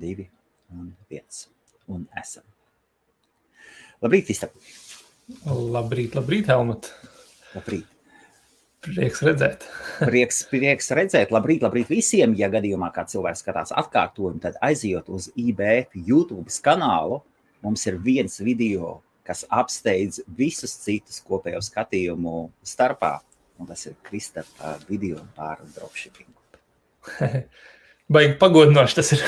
2 un 1. Un esam. Labrīt, Istap. Labrīt, Helmut. Labrīt. Prieks redzēt. Prieks redzēt. Labrīt visiem. Ja gadījumā kā cilvēks skatās atkārtojumu, tad aizjot uz IBF YouTube kanālu. Mums ir viens video, kas apsteidz visus citus kopējo skatījumu starpā. Un tas ir Kristapa video par dropshippingu. Baigi pagodinoši tas ir.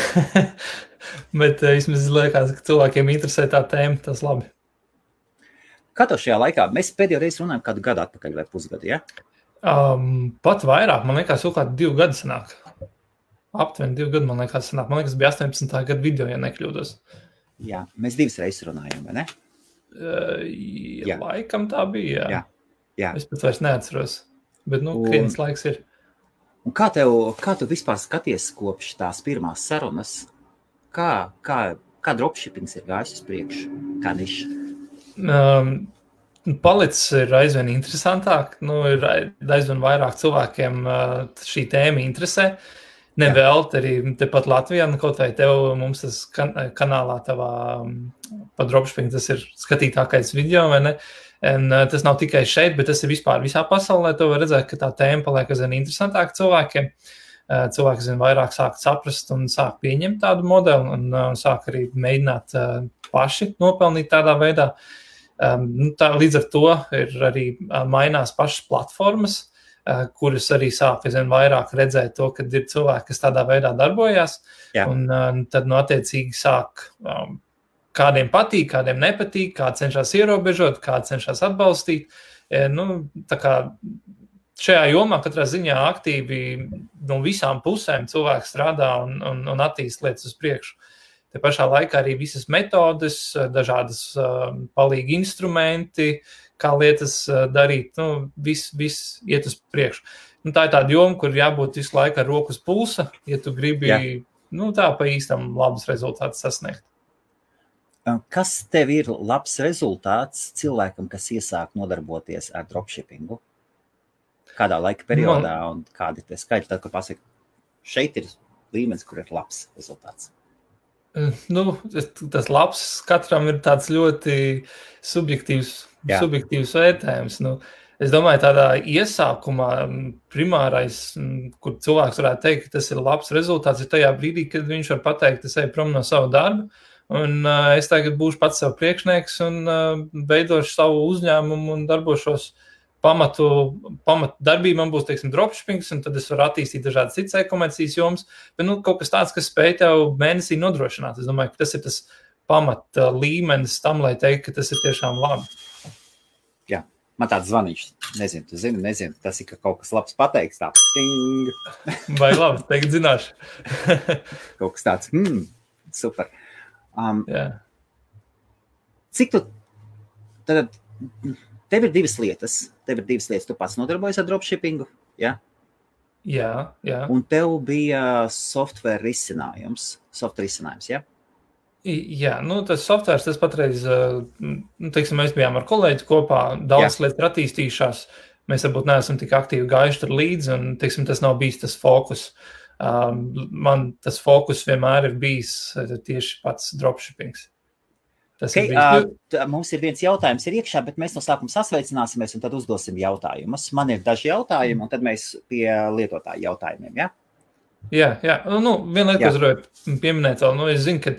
Bet vismaz liekas, ka cilvēkiem interesē tā tēma, tas labi. Kā tev šajā laikā? Mēs pēdējo reizi runājam kādu gadu atpakaļ vai pusgadu, ja? Pat vairāk, man liekas, jau kādi 2 gadi sanāk. Aptuveni 2 gadi, man liekas, sanāk. Man liekas, bija 18. gada video, ja nekļūdos. Jā, mēs 2 reizes runājam, vai ne? Jā. Laikam tā bija, jā. Es pat vairs neatceros, bet, krietnes laiks ir. Un kā tu vispār skaties kopš tās pirmās sarunas? Kā dropshippings ir gājis uz priekšu? Kā niša? Palicis ir aizvien interesantāk. Ir aizvien vairāk cilvēkiem šī tēma interesē. Nevēlt arī tepat Latvijā, kaut vai tev mums tas kanālā tavā par dropshipping, tas ir skatītākais video, vai ne? Un tas nav tikai šeit, bet tas ir vispār visā pasaulē. Tu var redzēt, ka tā tēma paliek aizvien interesantāka cilvēkiem. Cilvēki aizvien vairāk sāk saprast un sāk pieņemt tādu modeli un sāk arī mēģināt paši nopelnīt tādā veidā. Līdz ar to ir arī mainās pašas platformas, kuras arī sāk aizvien vairāk redzēt to, ka ir cilvēki, kas tādā veidā darbojās. Jā. Un tad attiecīgi sāk kādiem patīk, kādiem nepatīk, kāds cenšas ierobežot, kāds cenšas atbalstīt. Tā kā šajā jomā katrā ziņā aktīvi no visām pusēm cilvēks strādā un attīst lietas uz priekšu. Te pašā laikā arī visas metodes, dažādas palīgi instrumenti, kā lietas darīt, viss iet uz priekšu. Tā ir tāda joma, kur jābūt visu laiku ar roku uz pulsa, ja tu gribi tā pa īstam labus rezultātus sasniegt. Kas tev ir labs rezultāts cilvēkam, kas iesāk nodarboties ar dropshippingu? Kādā laika periodā un kādi tie skaitļi, tad, kad pasaka, šeit ir līmenis, kur ir labs rezultāts? Tas labs katram ir tāds ļoti subjektīvs vērtējums. Es domāju, tādā iesākumā primārais, kur cilvēks varētu teikt, ka tas ir labs rezultāts, ir tajā brīdī, kad viņš var pateikt, es eju prom no savu darbu, un es tagad būšu pats sev priekšnieks un veidošu savu uzņēmumu un darbošos pamatu darbību. Man būs, dropshippings, un tad es varu attīstīt dažādas citas e-komercijas jomas, bet kaut kas tāds, kas spēj tev mēnesī nodrošināt. Es domāju, ka tas ir tas pamata līmenis tam, lai teikt, ka tas ir tiešām labi. Jā, man tāds zvaniņš, nezinu, tas ir, ka kaut kas labs pateiks, tā. Ting. Vai labi, teikt zināšu. Kaut kas tāds, super. Cik tu, tad tev ir 2 lietas, tu pats nodarbojies ar dropshippingu, ja? Jā. Un tev bija software risinājums, ja? Jā, tas softwares, tas patreiz, mēs bijām ar kolēģi kopā, daudz lietas ir attīstījušās, mēs varbūt neesam tik aktīvi gājuši tur līdzi, un, tas nav bijis tas fokus. Man tas fokus vienmēr ir bijis tieši pats dropshippings. Mums ir viens jautājums iekšā, bet mēs no sākuma sasveicināsimies un tad uzdosim jautājumus. Man ir daži jautājumi, un tad mēs pie lietotāju jautājumiem, ja? Jā. Viena lieta, ko es gribēju pieminēt vēl, es zinu, ka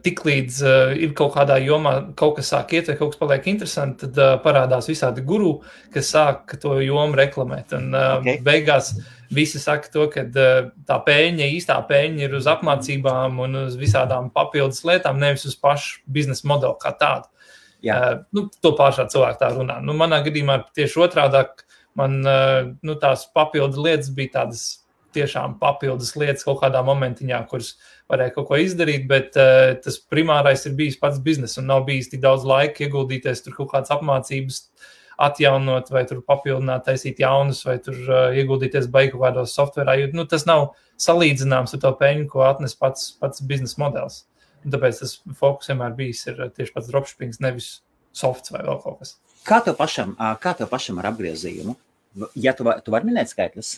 tik līdz ir kaut kādā jomā kaut kas sāk iet vai kaut kas paliek interesanti, tad parādās visādi guru, kas sāk to jomu reklamēt. Un beigās visi saka to, ka tā īstā pēļņa ir uz apmācībām un uz visādām papildus lietām, nevis uz pašu biznesa modeli kā tādu. To pārsvarā cilvēki tā runā. Manā gadījumā tieši otrādāk, man tās papildu lietas bija tādas tiešām papildus lietas kaut kādā momentiņā, kuras varēja kaut ko izdarīt, bet tas primārais ir bijis pats bizness un nav bijis tik daudz laika ieguldīties tur kaut kādas apmācības atjaunot vai tur papildināt, taisīt jaunus vai tur ieguldīties beigu kādos softverā, jo tas nav salīdzināms ar to peļņu, ko atnes pats biznesa modelis. Un tāpēc tas fokus vienmēr bijis ir tieši pats dropshippings, nevis softs vai vēl kaut kas. Kā tev pašam ar apgriezījumu? Ja tu vari minēt skaitļus?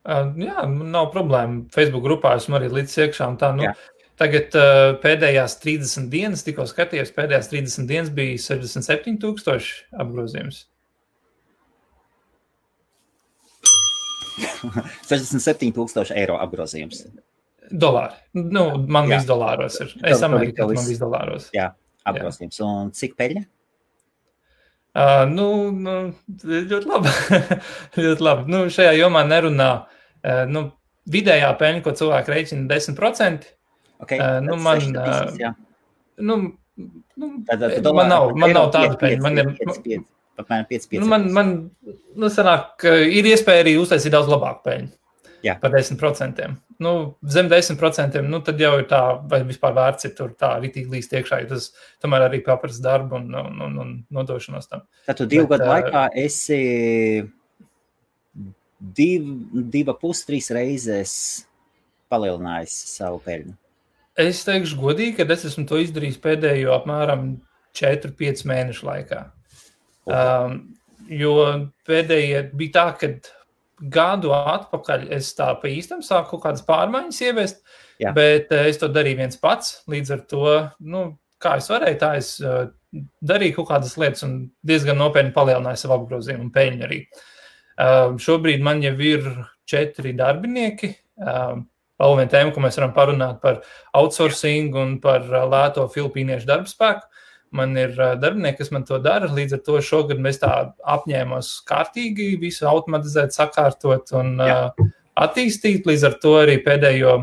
Jā, nav problēma. Facebook grupā esmu arī līdz iekšā un tā, Tagad pēdējās 30 dienas, tikko skatījos, pēdējās 30 dienas bija 67,000 apgrozījums. 67,000 eiro apgrozījums. Dolāri. Nu, man viss dolāros ir. Es Amerikā, man viss dolāros. Jā, apgrozījums. Un cik peļņa? Ļoti labi. Ļoti labi. Nu, šajā jomā nerunā. Vidējā peļņa, ko cilvēki rēķina 10%. Okay, man nav tāda peļņa. Apmēram 5. Man sanāk, ir iespēja arī uztaisīt daudz labāku peļņu. Jā. Par 10%. Zem 10%, tad jau ir tā, vai vispār vērts ir tur tā ritīgi līst iekšā, jo tas tomēr arī paprasa darbu un nodošanos tam. Tad tu 2 gadu laikā esi 2,5-3 reizes palielinājis savu peļņu. Es teikšu godīgi, ka es esmu to izdarījis pēdējo apmēram 4-5 mēnešu laikā. Jo pēdējie bija tā, kad gadu atpakaļ es tā pa īstam sāku kaut kādas pārmaiņas ieviest, bet es to darīju viens pats, līdz ar to, kā es varēju, tā es darīju kaut kādas lietas un diezgan nopietni palielināju savu apgrozījumu un peļņu arī. Šobrīd man jau ir 4 darbinieki, vēl viena tēma, ko mēs varam parunāt par outsourcing un par lēto filipīniešu darbspēku. Man ir darbinieki, kas man to dara, līdz ar to šogad mēs tā apņēmos kārtīgi visu automatizēt, sakārtot un attīstīt, līdz ar to arī pēdējo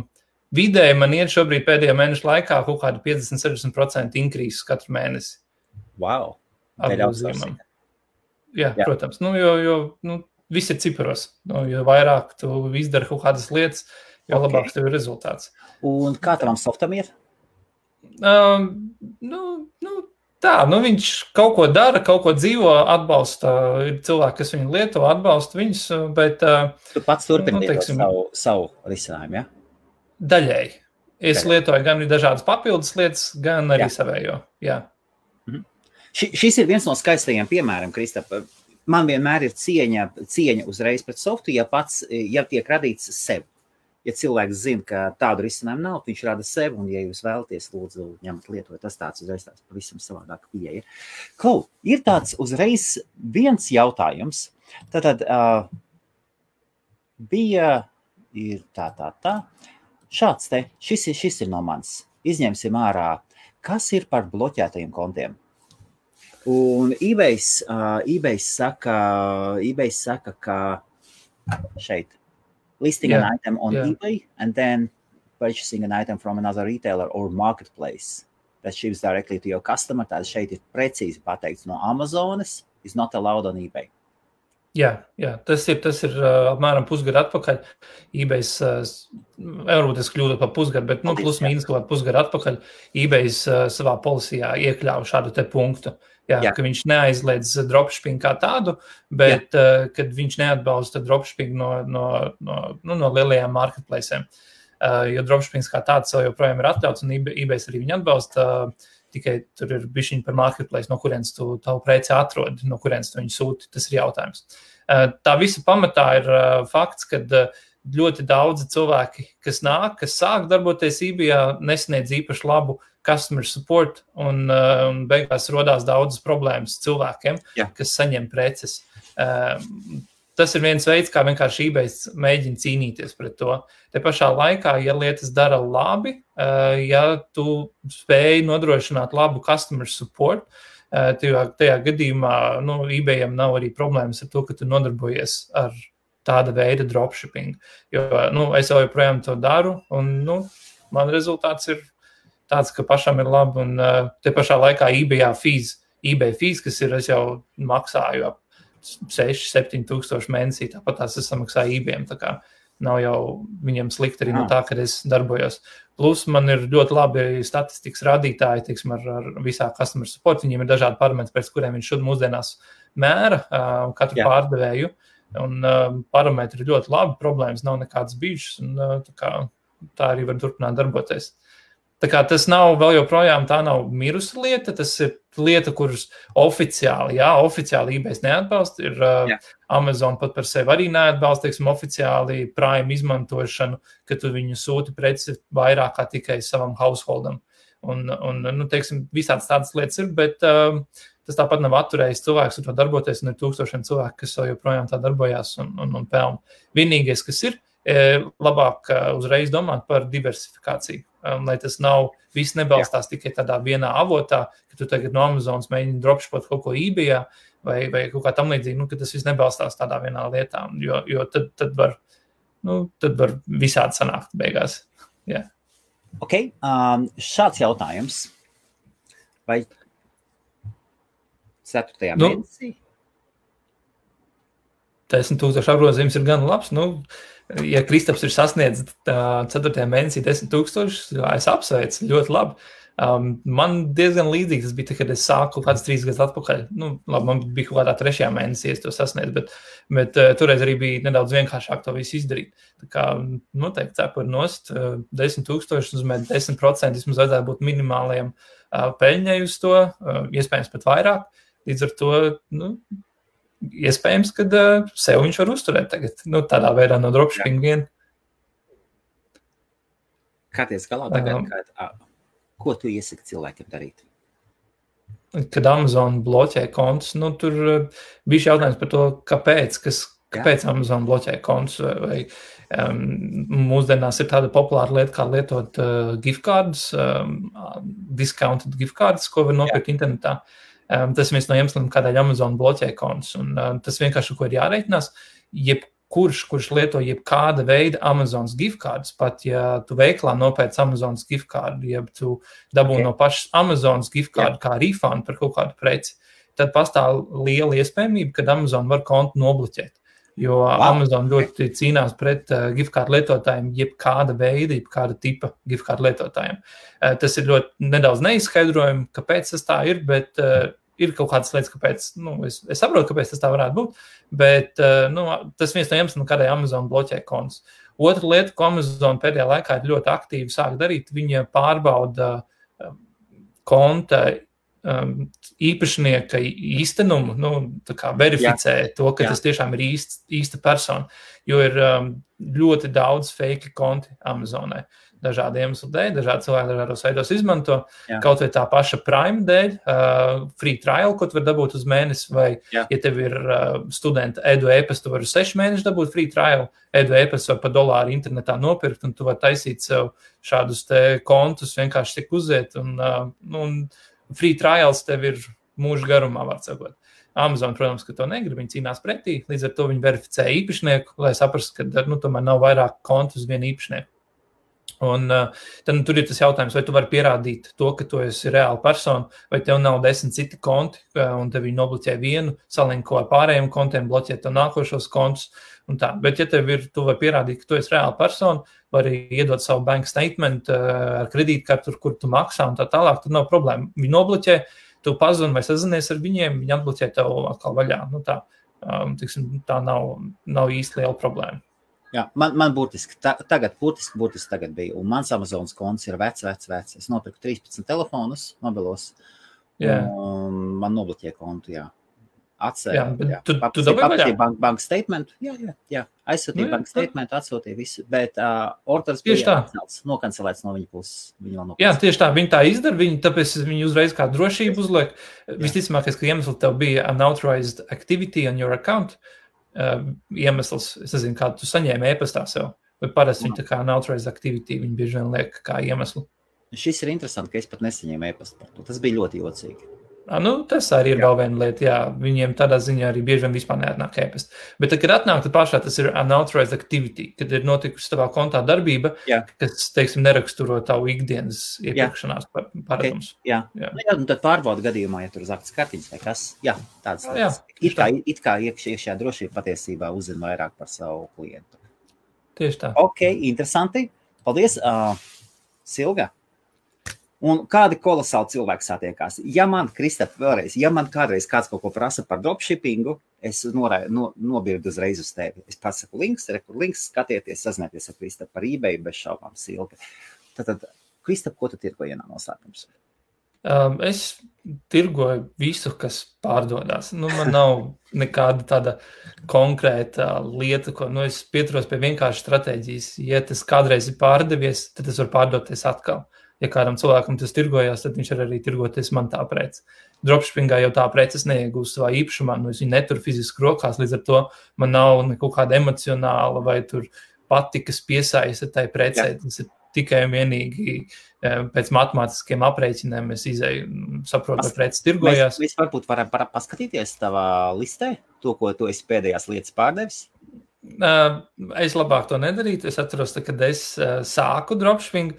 vidēji man iet šobrīd pēdējo mēnešu laikā kaut kādu 50-60% increase katru mēnesi. Wow! Jā, protams, jo viss ir ciparos, jo vairāk tu izdari kaut kādas lietas, jo labāks tev ir rezultāts. Un kā tavam softam ir? Viņš kaut ko dara, kaut ko dzīvo, atbalsta, ir cilvēki, kas viņu lieto, atbalsta viņus, bet... Tu pats turpini savu risinājumu, ja? Daļēji. Es lietoju gan dažādas papildus lietas, gan arī savējo, jā. Šis ir viens no skaistajiem piemēram, Kristap. Man vienmēr ir cieņa uzreiz pret softu, ja tiek radīts sev. Ja cilvēks zina, ka tādu risinājumu nav, viņš rada sev, un ja jūs vēlaties, lūdzu, ņemt lietot, tas tāds uzreiz tāds pavisam savādāk pieeja. Ir tāds uzreiz viens jautājums. Tātad ir tā. Šāds te, šis ir no manis. Izņemsim ārā, kas ir par bloķētajiem kontiem. Un eBay saka, ka šeit, listing an item on eBay and then purchasing an item from another retailer or marketplace that ships directly to your customer. Tātad šeit ir precīzi pateikts no Amazonas is not allowed on eBay. Jā, tas ir apmēram pusgadu atpakaļ. eBays, varbūt es kļūdu par pusgadu, bet plus mīnus kaut pusgadu atpakaļ eBays savā policijā iekļāva šādu te punktu. Jā, ka viņš neaizliedz dropshipping kā tādu, bet kad viņš neatbalsta dropshipping no lielajām marketplacēm. Jo dropshippings kā tāds joprojām ir atļauts un eBays arī viņu atbalsta, tikai tur ir bišķiņi par marketplace, no kurienes tu tavu preci atrodi, no kurienes tu viņu sūti, tas ir jautājums. Tā visa pamatā ir fakts, kad ļoti daudzi cilvēki, kas sāk darboties eBayā, nesniedz īpaši labu customer support un beigās rodās daudzas problēmas cilvēkiem, kas saņem preces. Tas ir viens veids, kā vienkārši eBays mēģina cīnīties pret to. Te pašā laikā, ja lietas dara labi, ja tu spēj nodrošināt labu customer support, tajā gadījumā eBayam nav arī problēmas ar to, ka tu nodarbojies ar tāda veida dropshipping. Jo es joprojām to daru un man rezultāts ir tāds, ka pašam ir labi, un te pašā laikā eBay fees, kas ir, es jau maksāju ap 6-7 tūkstoši mēnesī, tāpat tās es samaksāju eBayam, tā kā nav jau viņam slikti arī no tā, kad es darbojos. Plus man ir ļoti labi statistikas rādītāji, teiksim, ar visā customer support, viņiem ir dažādi parametri, pēc kuriem viņš mūsdienās mēra katru pārdevēju, un parametri ir ļoti labi, problēmas nav nekādas bijušas, un tā arī var turpināt darboties. Tā kā tas nav vēl joprojām, tā nav mirusa lieta, tas ir lieta, kuras oficiāli eBay neatbalsta, ir Amazon pat par sevi arī neatbalsta, teiksim, oficiāli Prime izmantošanu, ka tu viņu sūti preci vairāk kā tikai savam householdam. Un teiksim, visāds tādas lietas ir, bet tas tāpat nav atturējis cilvēks ar to darboties, un ir tūkstošiem cilvēku, kas vēl joprojām tā darbojās un pelna. Vienīgais, kas ir, labāk uzreiz domāt par diversifikāciju, lai tas nav, viss nebalstās tikai tādā vienā avotā, ka tu tagad no Amazonas mēģini dropshipot kaut ko eBayā vai kaut kā tam līdzīgi, ka tas viss nebalstās tādā vienā lietā, jo tad var visādi sanākt beigās. Yeah. Ok, šāds jautājums. Vai 4. mēnesī? 10,000 apgrozījums ir gan labs, ja Kristaps ir sasniedzis 4. mēnesī 10,000, es apsveicu, ļoti labi. Man diezgan līdzīgi tas bija, kad es sāku kāds 3 gadus atpakaļ. Man bija kaut kādā 3. mēnesī, es to sasniedzu, bet toreiz arī bija nedaudz vienkāršāk to visu izdarīt. Tā kā noteikti cepur nost 10,000, uzmēt 10%, vismaz vajadzētu būt minimāliem peļņai uz to, iespējams pat vairāk. Līdz ar to, iespējams, kad sev viņš var uzturēt tagad, tādā veidā no dropshipping vien. Kā ties galā tagad, ko tu iesaki cilvēkiem darīt? Kad Amazon bloķē kontus, tur bija jautājums par to, kāpēc Amazon bloķē kontus, vai mūsdienās ir tāda populāra lieta, kā lietot gift cards, discounted gift cards, ko var nopirkt internetā. Tas ir viens no iemesliem, kādēļ Amazon bloķē kontus, un tas vienkārši, ko ir jāreikinās, kurš lieto jebkāda veida Amazonas gift cards, pat ja tu veiklā nopēc Amazonas gift cardu, ja tu dabū no pašas Amazonas gift cardu kā refund par kaut kādu preci, tad pastāv liela iespējamība, kad Amazon var kontu nobloķēt. Jo Amazon ļoti cīnās pret gift card lietotājiem, jebkāda veida, jebkāda tipa gift card lietotājiem. Tas ir ļoti nedaudz neizskaidrojami, kāpēc tas tā ir, bet ir kaut kādas lietas, kāpēc, es saprotu, kāpēc tas tā varētu būt, bet tas viens no iemesliem, kādēļ Amazon bloķē kontus. Otra lieta, ko Amazon pēdējā laikā ir ļoti aktīvi sāk darīt, viņa pārbauda konta īpašnieka īstenumu, tā kā verificē to, ka tas tiešām ir īsta persona, jo ir ļoti daudz fake konti Amazonē. Dažādi iemesli dēļ, dažādi cilvēki dažādos veidos izmanto, kaut vai tā paša Prime dēļ, free trial, ko tu var dabūt uz mēnesi, vai, ja tev ir studenta edu e-pastu, tu vari 6 mēneši dabūt free trial, edu e-pastu var pa $1 internetā nopirkt, un tu var taisīt sev šādus te kontus, vienkārši tik uziet, un free trials tev ir mūža garumā, var sakot. Amazon, protams, ka to negrib, viņi cīnās pretī, līdz ar to viņi verificē īpašnieku, lai saprastu, ka tomēr nav vairāk kontu uz vienu īpašnieku. Un tad tur ir tas jautājums, vai tu vari pierādīt to, ka tu esi reāla persona, vai tev nav 10 citi konti, un tev viņi nobloķē vienu, salinko ar pārējiem kontiem, bloķē tev nākošos kontus un tā. Bet ja tu vari pierādīt, ka tu esi reāla persona, vari iedot savu bank statement ar kredītkartu, kur tu maksā un tā tālāk, tad nav problēma. Viņi nobloķē, tu pazvani vai sazinies ar viņiem, viņi atbloķē tev atkal vaļā. Tā nav īsti liela problēma. Jā, man burtiski tagad bija, un mans Amazonas konts ir vecs. Es nopirku 13 telefonus mobilos, un man nobloķēja kontu, Atsēja, tu dabūji bank statement, aizsūtīja bank statement, atsūtīja visu, bet orders bija nokancelēts no viņa puses. Jā, tieši tā, viņi tā izdara, tāpēc viņi uzreiz kā drošību uzliek. Visticamākais, ka iemesli tev bija unauthorized activity on your account, iemesls, es nezinu, kā tu saņēmi e-pastā sev, vai parasti viņi tā kā unauthorized activity, viņi bieži vien liek kā iemeslu. Šis ir interesanti, ka es pat nesaņēmu e-pastu par to. Tas bija ļoti jocīgi. Tas arī ir vēl viena lieta, viņiem tādā ziņā arī bieži vien vispār neatnāk e-pasta. Bet tad, kad atnāk, tad pašā tas ir unauthorized activity, kad ir notikusi tavā kontā darbība, kas, teiksim, neraksturo tavu ikdienas iepirkšanās paradums. Un tad pārbauda gadījumā, ja tur uz aktas kartiņas vai kas, tādas lietas. It kā iekšējā drošība patiesībā uzzina vairāk par savu klientu. Tieši tā. Ok, interesanti. Paldies, Silga. Un kādi kolosāli cilvēki satiekās. Ja man kādreiz kāds kaut ko prasa par dropshippingu, es nobirdu uzreiz uz tevi. Es pasaku links, skatieties, sazinieties ar Kristapu par eBay, bez šaubām Silga. Tad Kristap, ko tu tirgoji vienā noslēpums? Es tirgoju visu, kas pārdodās. Man nav nekāda tāda konkrēta lieta, ko es pieturos pie vienkārši stratēģijas. Ja tas kādreiz ir pārdevies, tad tas var pārdoties atkal. Ja kādam cilvēkam tas tirgojās, tad viņš var arī tirgoties man tā prece. Dropshippingā jau tā preces neiegūst savā īpašumā, es viņu neturu fiziski rokās, līdz ar to man nav kaut kāda emocionāla vai tur patikas piesaista tai precei. Tas ir tikai un vienīgi pēc matemātiskiem aprēķiniem es izēju, saprotu, vai preces tirgojās. Mēs varbūt varam paskatīties tavā listē, to, ko tu esi pēdējās lietas pārdevis? Es labāk to nedarītu. Es atceros, kad es sāku dropshipping,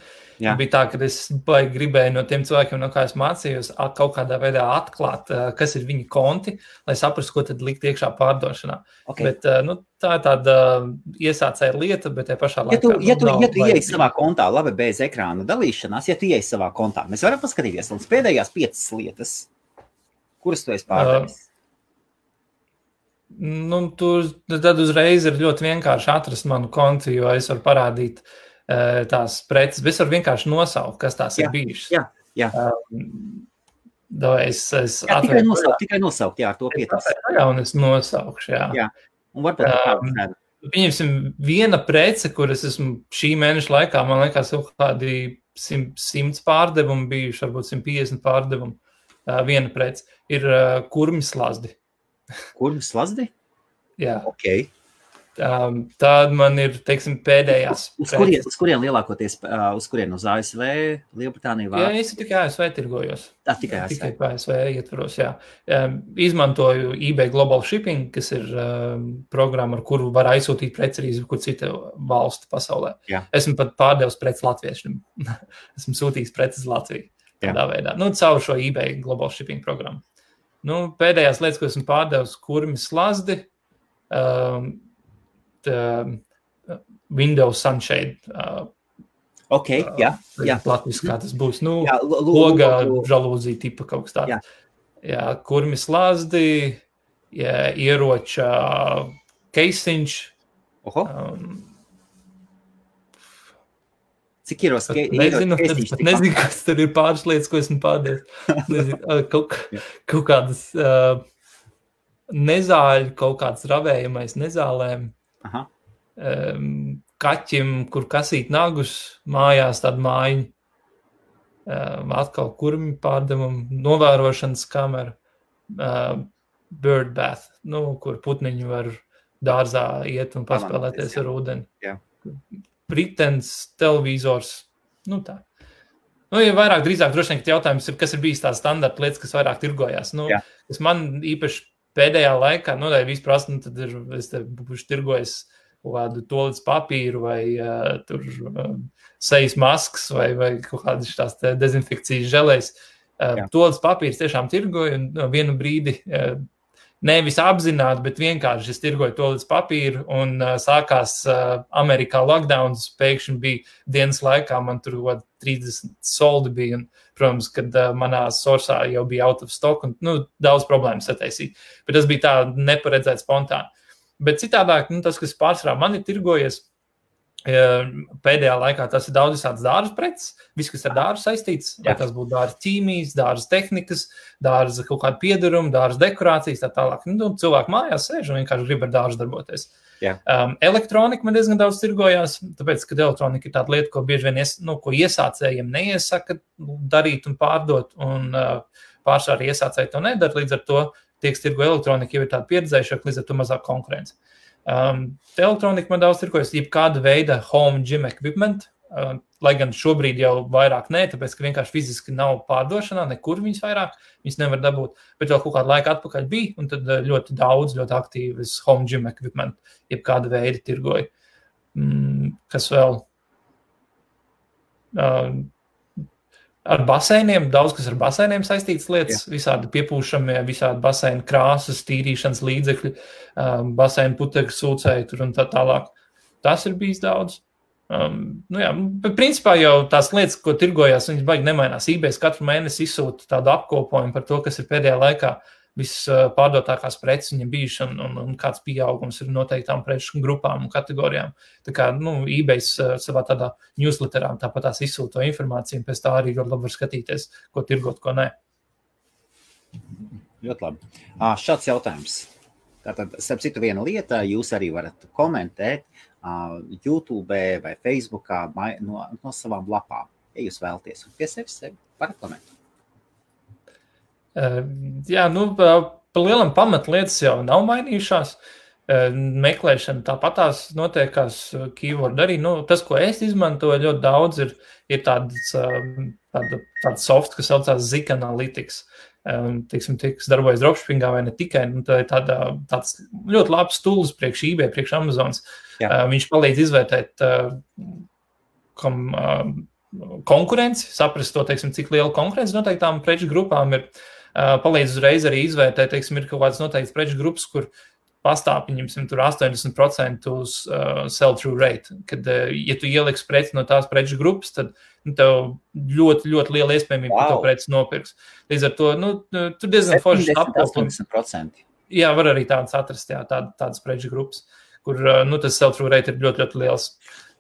bija tā, ka es gribēju no tiem cilvēkiem, no kā es mācījos, kaut kādā veidā atklāt, kas ir viņa konti, lai saprastu, ko tad likt iekšā pārdošanā. Okay. Bet tā ir tāda iesācēja lieta, bet te pašā laikā... Ja tu ieej savā kontā, labi, bez ekrāna dalīšanās, ja tu ieej savā kontā, mēs varam paskatīties līdz pēdējās 5 lietas, kuras tu esi pārdevis. Tad uzreiz ir ļoti vienkārši atrast manu kontu, jo es varu parādīt tās preces, bet es varu vienkārši nosaukt, kas tās ir bijušas. Jā. Tikai nosaukt, jā, ar to pietas. Un es nosaukšu, jā. Un varbūt pieņemsim viena prece, kuras esmu šī mēneša laikā, man liekas, kaut kādi 100 pārdevumi bijuši, varbūt 150 pārdevumi. Viena prece ir kurmi slazdi. Kurmi slazdi? Jā. Ok. Tāda man ir, teiksim, pēdējās. Uz kurien lielākoties, uz ASV, Lielbritānija? Jā, es tikai ASV tirgojos. Tikai ASV. Tikai ASV ietvaros, jā. Izmantoju eBay Global Shipping, kas ir programma, ar kuru var aizsūtīt preci arī kur cita valstu pasaulē. Jā. Esmu pat pārdevis preci latviešiem. Esmu sūtījis preces Latviju. Tādā veidā. Caur šo eBay Global Shipping programmu. Pēdējās lietas, ko esmu pārdevis, kurmi slazdi, Windows Sunshade. Ok, jā. Latviski, kā tas būs. Loga žalūzija tipa kaut kas tāds. Jā, kurmi slazdi, ieroča keisiņš. Cik ieros? Nezinu, kas tur ir pāris lietas, ko esmu pārdevis. Kaut kādas nezāļu, kaut kāds ravējamais nezālēm. Kaķim, kur kasīt nagus, mājās tādu mājiņu. Atkal kurmi pārdevumu, novērošanas kamera, bird bath, kur putniņi var dārzā iet un paspēlēties ar ūdeni. Jā. Britens, televizors, tā. Ja vairāk drīzāk droši vien, jautājums ir, kas ir bijis tās standarta lietas, kas vairāk tirgojās. Kas man īpaši pēdējā laikā, ja vispār, tad es te būšu tirgojis kādu tolīdz papīru vai sejas maskas vai kaut kādas tās dezinfekcijas želēs. Tolīdz papīrs tiešām tirgoju un vienu brīdi nevis apzināti, bet vienkārši es tirgoju tolīdz papīru un sākās Amerikā lockdowns, pēkšņi bija dienas laikā, man tur 30 soldi bija, un, protams, kad manā sorsā jau bija out of stock, un daudz problēmas sataisīt. Bet tas bija tā neparedzēt spontāni. Bet citādāk, tas, kas pārsvarā man ir tirgojies, pēdējā laikā tas ir daudz visādas dārza preces, viss, kas ar dārzu saistīts, vai tas būtu dārza ķīmijas, dārza tehnikas, dārza kaut kāda piedaruma, dārza dekorācijas, tā tālāk. Cilvēki mājās sēž un vienkārši grib ar dārzu darboties. Elektronika man diezgan daudz tirgojās, tāpēc, ka elektronika ir tāda lieta, ko bieži vien ko iesācējiem neiesaka darīt un pārdot, un pārsvarā iesācēji to nedara, līdz ar to tiek tirgo elektronika jau ir tāda pieredzējušāka, līdz ar to mazāk konkurence. Elektronika man daudz tirgojas, jebkāda veida home gym equipment, lai gan šobrīd jau vairāk nē, tāpēc, ka vienkārši fiziski nav pārdošanā, nekur viņas vairāk, viņas nevar dabūt, bet vēl kaut kādu laiku atpakaļ bija, un tad ļoti daudz, ļoti aktīvas home gym equipment, jebkāda veida tirgoja. Kas vēl? Ar baseiniem, daudz kas ar baseiniem saistītas lietas, visādi piepūšamie, visādi baseinu krāsas, tīrīšanas līdzekļi, baseinu putekļu sūcēji tur un tā tālāk. Tas ir bijis daudz. Bet principā jau tās lietas, ko tirgojās, viņas baigi nemainās. eBay katru mēnesi izsūta tādu apkopojumu par to, kas ir pēdējā laikā vispārdotākās preces viņam bijuši un kāds pieaugums ir noteiktām preču grupām un kategorijām. Tā kā, eBays savā tādā newsletterā tāpat tās izsūto informāciju, un pēc tā arī ļoti labi var skatīties, ko tirgot, ko nē. Ļoti labi. Šāds jautājums. Tātad, starp citu, viena lieta, jūs arī varat komentēt YouTube vai Facebookā no savām lapām, ja jūs vēlaties. Un pie sevis varat komentēt. Jā, pa lielam pamatlietas jau nav mainījušās. Meklēšana tāpatās notiekās keyword arī. Tas, ko es izmantoju ļoti daudz, ir tāds soft, kas saucās Zik Analytics. Kas darbojas dropshippingā vai ne tikai. Tā ir tāds ļoti labs tools priekš eBay, priekš Amazonas. Viņš palīdz izvērtēt konkurenci, saprast to, cik liela konkurence noteiktām preču grupām ir. Palīdz uzreiz arī izvērtēt, ir kaut kāds noteikts preču grupas, kur pastāv, tur 80% uz sell-through rate. Kad, ja tu ieliksi preci no tās preču grupas, tad tev ļoti, ļoti liela iespējamība, ka to preci nopirks. Līdz ar to, tur diezgan foršs apkopums. 80%. Jā, var arī tādas atrast, tādas preču grupas, kur, tas sell-through rate ir ļoti, ļoti liels.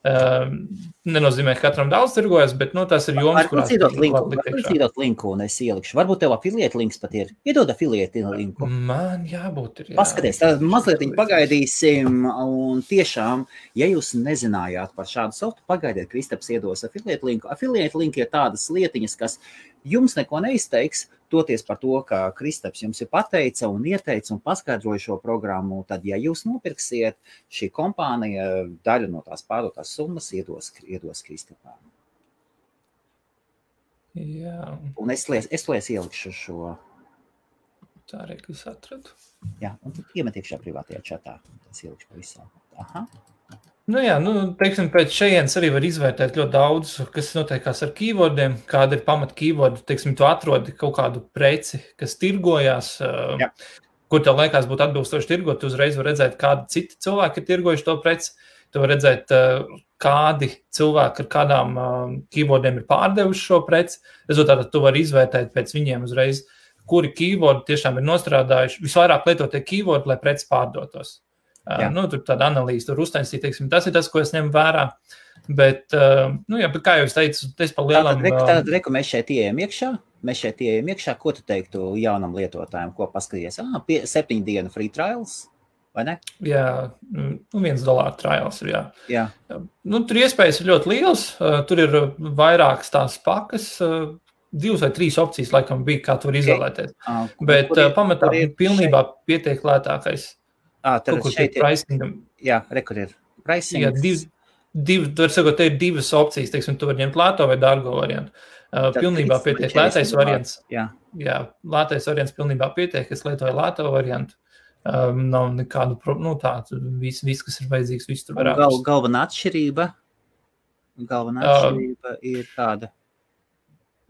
Nenozīmē, ka katram daudz tirgojas, bet tas ir joms, kurās Varbūt linku, un es ielikšu. Varbūt tev affiliate links pat ir. Iedod affiliate linku. Man jābūt ir. Jā. Paskaties, tad mazliet pagaidīsim, un tiešām, ja jūs nezinājāt par šādu softu, pagaidiet, Kristaps iedos affiliate linku. Affiliate link ir tādas lietiņas, kas jums neko neizteiks, toties par to, ka Kristaps jums ir pateica un ieteica un paskaidroja šo programmu, tad, ja jūs nopirksiet, šī kompānija daļu no tās pārdotās summas iedos Kristapām. Jā. Un es ielikšu šo. Tā arī, ka es atradu. Jā, un tad iemet iekšā privātajā čatā. Es ielikšu pavisam. Aha. Pēc šejienes arī var izvērtēt ļoti daudz, kas notiekās ar keywordiem, kāda ir pamat keyword, tu atrodi kaut kādu preci, kas tirgojās, kur tev liekas būtu atbilstoši tirgot, tu uzreiz var redzēt, kādi citi cilvēki ir tirgojuši to preci, tu var redzēt, kādi cilvēki ar kādām keywordiem ir pārdevuši šo preci, rezultātā tu vari izvērtēt pēc viņiem uzreiz, kuri keywordi tiešām ir nostrādājuši, visvairāk lietotie keywordi, lai preci pārdotos. Tur tāda analīze, tur uztaisīt, tas ir tas, ko es ņemu vērā, bet kā jau es teicu, es pa lielam... Tātad, mēs šeit ieejam iekšā, ko tu teiktu jaunam lietotājiem, ko paskaties? 7 dienu free trials, vai ne? Jā, $1 trials ir, jā. Tur iespējas ir ļoti liels, tur ir vairākas tās pakas, 2 vai 3 opcijas, laikam bija, kā tu var izvēlēties, bet pamatā pilnībā pietiek lētākais. Tad šeit ir, kur ir pricing. Jā, var sakot, te ir 2 opcijas, tu var ņemt lēto vai dārgo variantu. Pilnībā pietiek lētais variants. Jā, lētais variants pilnībā pietiek, es lietoju lēto variantu. Nav nekādu problēmu, viss, kas ir vajadzīgs, viss tur var atrast. Galvenā atšķirība ir tāda.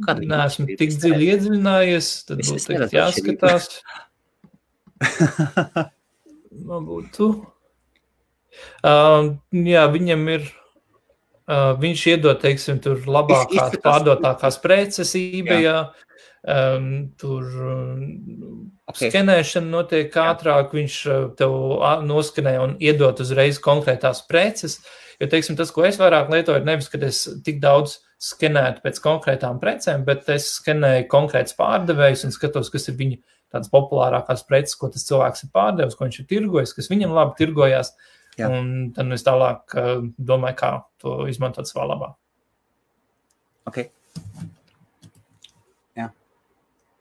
Neesmu tik dziļi iedziļinājies, tad būtu jāskatās. Būtu. Viņam ir, viņš iedod, tur labākās pārdotākās preces eBayā, tur skenēšana notiek ātrāk, viņš tev noskenē un iedod uzreiz konkrētās preces, jo, tas, ko es vairāk lietoju, ir nevis, kad es tik daudz skenētu pēc konkrētām precēm, bet es skenēju konkrēts pārdevējus un skatos, kas ir viņa tādas populārākās preces, ko tas cilvēks ir pārdevis, ko viņš ir tirgojis, kas viņam labi tirgojās, un tad es tālāk domāju, kā to izmantot savā labā. Ok. Jā.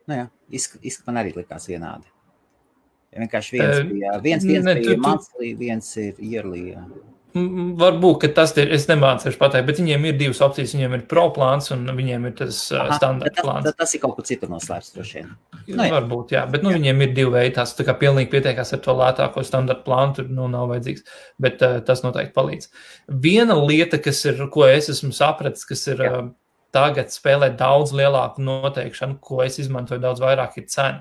Man arī likās vienādi. Ja vienkārši viens bija monthly, viens ir yearly, Varbūt, ka tas ir, es nemācīšu pateikt, bet viņiem ir 2 opcijas, viņiem ir pro plāns un viņiem ir tas standarta plāns. Tas ir kaut kur citur noslēpts droši vien. Varbūt, bet viņiem ir 2 veidi, tās tā kā pilnīgi pietiekās ar to lētāko standarta plānu, tur nav vajadzīgs, bet tas noteikti palīdz. Viena lieta, ko es esmu sapratis, kas ir tagad spēlē daudz lielāku noteikšanu, ko es izmantoju daudz vairāk, ir cena.